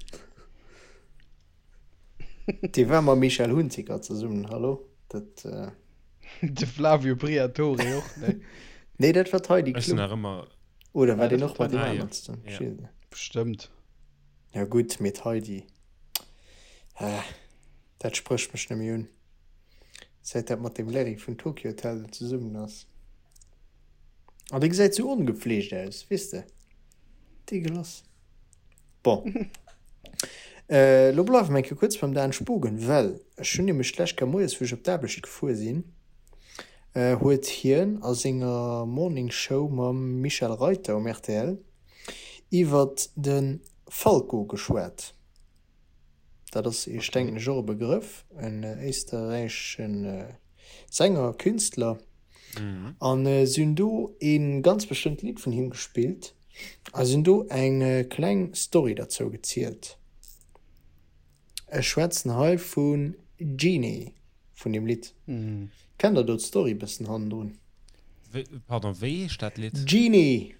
S3: Dee war mam Michel Hunziker zesummen, hallo? Dat. Äh...
S2: De Flavio Briatore och, ne?
S3: Nee, dat war d'Heidi
S1: Ech sinn
S3: Klum.
S1: nach ëmmer.
S3: Oder war
S2: Ah,
S3: deen
S2: dat
S3: och
S2: war
S3: mat deem
S1: Ah, jo.
S3: aneren zesummen?
S1: Ja.
S3: Ech weess et net.
S2: Bestëmmt.
S3: Ja gutt, mee d'Heidi. Ah, dat sprécht mech net méi un. Säit dat mat deem Larry vun Tokio Hotel do zesummen ass. An dee gesäit sou ongepfleegt aus, weess de. Deegelass. Bon. Elo bleiwe mer eng Kéier kuerz beim Dan Spogen, well ech hunn nämlech d'lescht Kéier moies, wou ech op d'Aarbecht gefuer sinn, huet hien a senger Morning Show mam Michel Reiter um rtl iwwert de Falco geschwat. Dat ass Iech, denken ech, och e Begrëff, en éisterräichesche Sänger, Künstler. An si hunn do e ganz bestëmmt Lidd vun him gespillt a si hunn do eng kleng Story derzou gezielt. Ech schwätzen hei vu Jeanny, vun deem Lidd. Kennt der do d'Story e bëssen hannendrun?
S1: Pardon, wéi heescht dat Lidd?
S3: Jeanny!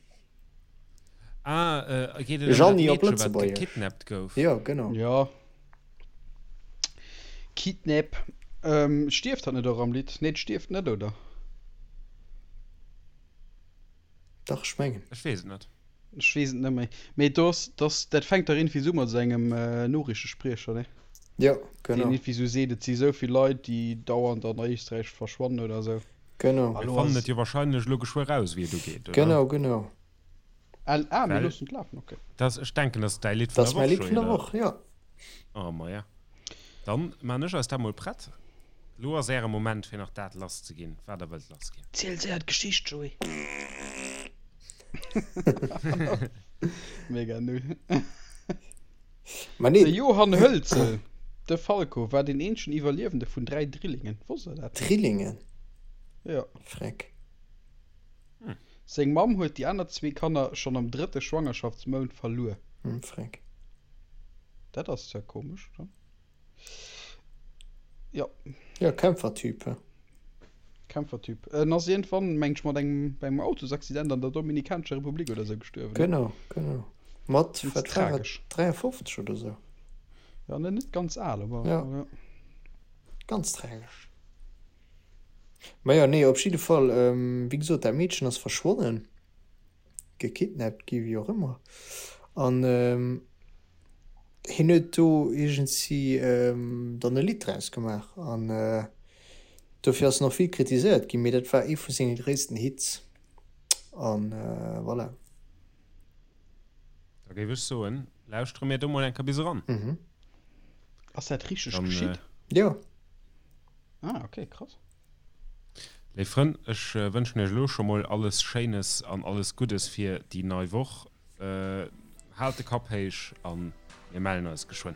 S1: Ah, geet et ëm dat
S3: Jeanny op
S1: Meedche, wat
S3: Lëtzebuergesch.
S1: gekidnappt gouf?
S3: Jo, genau.
S2: Jo. Kidnap. Stierft hatt net och am Lidd? Nee, d'stierft net, oder?
S3: Dach, ech mengen.
S1: Ech weess et net.
S2: Ech weess et net méi. Mee do ass, dass, dat fänkt dach iergendwéi esou mat esou engem Noriichtespriecher, ne?
S3: Jo, genau.
S2: Deen iergendwéi esou seet, et si esou vill Leit, déi dauernd an Éisträich verschwannen oder esou.
S3: Genau.
S1: Mir fannen et jo wahrscheinlech elo geschwë raus, wéi et ugeet, oder?
S3: Genau, genau.
S2: Ah, mir loossen et lafen, ok.
S1: Dat, ech denken, dat ass däi Lidd vun
S3: der Woch,
S1: Joé,
S3: Dat ass mäi Lidd vun der
S1: oder?
S3: Woch, jo.
S1: Oh, maja. Dann maan ech eis dat mol prett. Lo ass äre Moment, fir nach dat lass ze ginn, wat der wëllt lass ginn.
S2: Ziel séier d'Geschicht, Joé. Mega null.
S3: Ma nee.
S2: De Johann Hölzl, de Falco, war deen eenzegen Iwwerliewende vun 3 Drillingen. Wosst der dat?
S3: Drillingen?
S2: Jo.
S3: Freck.
S2: Seng Mamm huet déi aner zwee Kanner schonn am drëtte Schwangerschaftsmount verluer.
S3: Freck.
S2: Dat ass zwar komesch, oder? Jo.
S3: Jo, Kämpfertyp, he?
S2: Kämpfertyp. En ass iergendwann, meng ech, mat engem, bei engem Autosaccident an der Dominikanescher Republik oder sou gestuerwen.
S3: Genau, genau. Mat,
S2: Ganz
S3: wat war et,
S2: tragesch.
S3: 53 oder sou?
S2: Ja, net, net ganz al, awer
S3: Ja.
S2: ja.
S3: Ganz tragesch. Ma jo, nee, op jidde Fall, wéi gesot, dat Meedchen ass verschwonnen. gekidnappt gi wéi och ëmmer an hien huet do iergendsi dann e Lidd draus gemaach an dofir ass en och vill kritiséiert ginn, mee dat war ee vu senge gréissten Hits an voilà.
S1: Da géif ech soen, lauschtere mir do mol eng Kéier bis eran.
S2: Ass dat richteg geschitt?
S3: Jo.
S2: Ah ok, krass.
S1: Léif Frënn, ech wënschen iech elo scho mol alles Schéines an alles Guddes fir déi nei Woch. Haalt de Kapp héich an mir mellen eis geschwënn.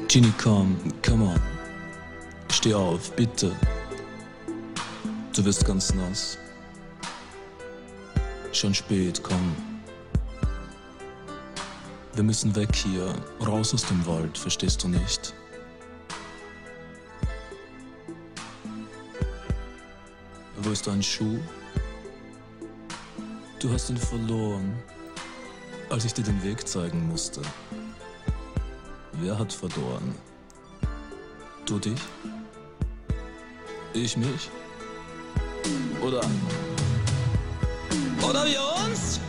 S6: Jeanny komm, come on, steh auf, bitte. Du wirst ganz nass. Schon spät, komm. Wir müssen weg hier, raus aus dem Wald, verstehst du nicht? Wo ist dein Schuh? Du hast ihn verloren, als ich dir den Weg zeigen musste. Wer hat verloren? Du dich? Ich mich? Oder Oder wir uns?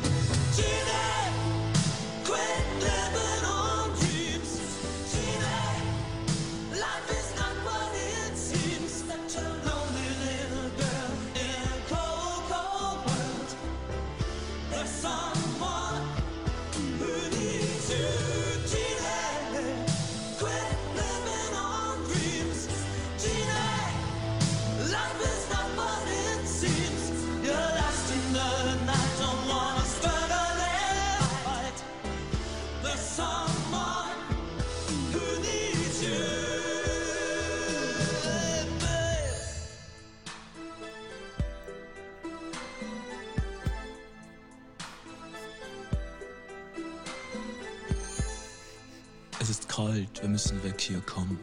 S6: Es ist kalt, wir müssen weg hier kommen.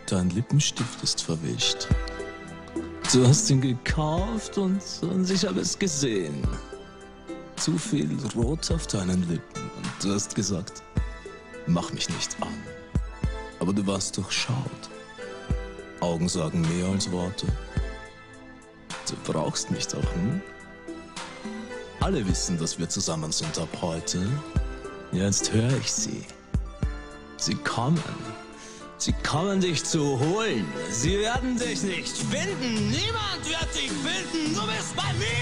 S6: Dein Lippenstift ist verwischt. Du hast ihn gekauft und, und ich habe es gesehen. Zu viel Rot auf deinen Lippen. Du hast gesagt, mach mich nicht an. Aber du warst durchschaut. Augen sagen mehr als Worte. Du brauchst mich doch, hm? Alle wissen, dass wir zusammen sind ab heute. Jetzt höre ich sie. Sie kommen. Sie kommen dich zu holen. Sie werden dich nicht finden. Niemand wird dich finden. Du bist bei mir!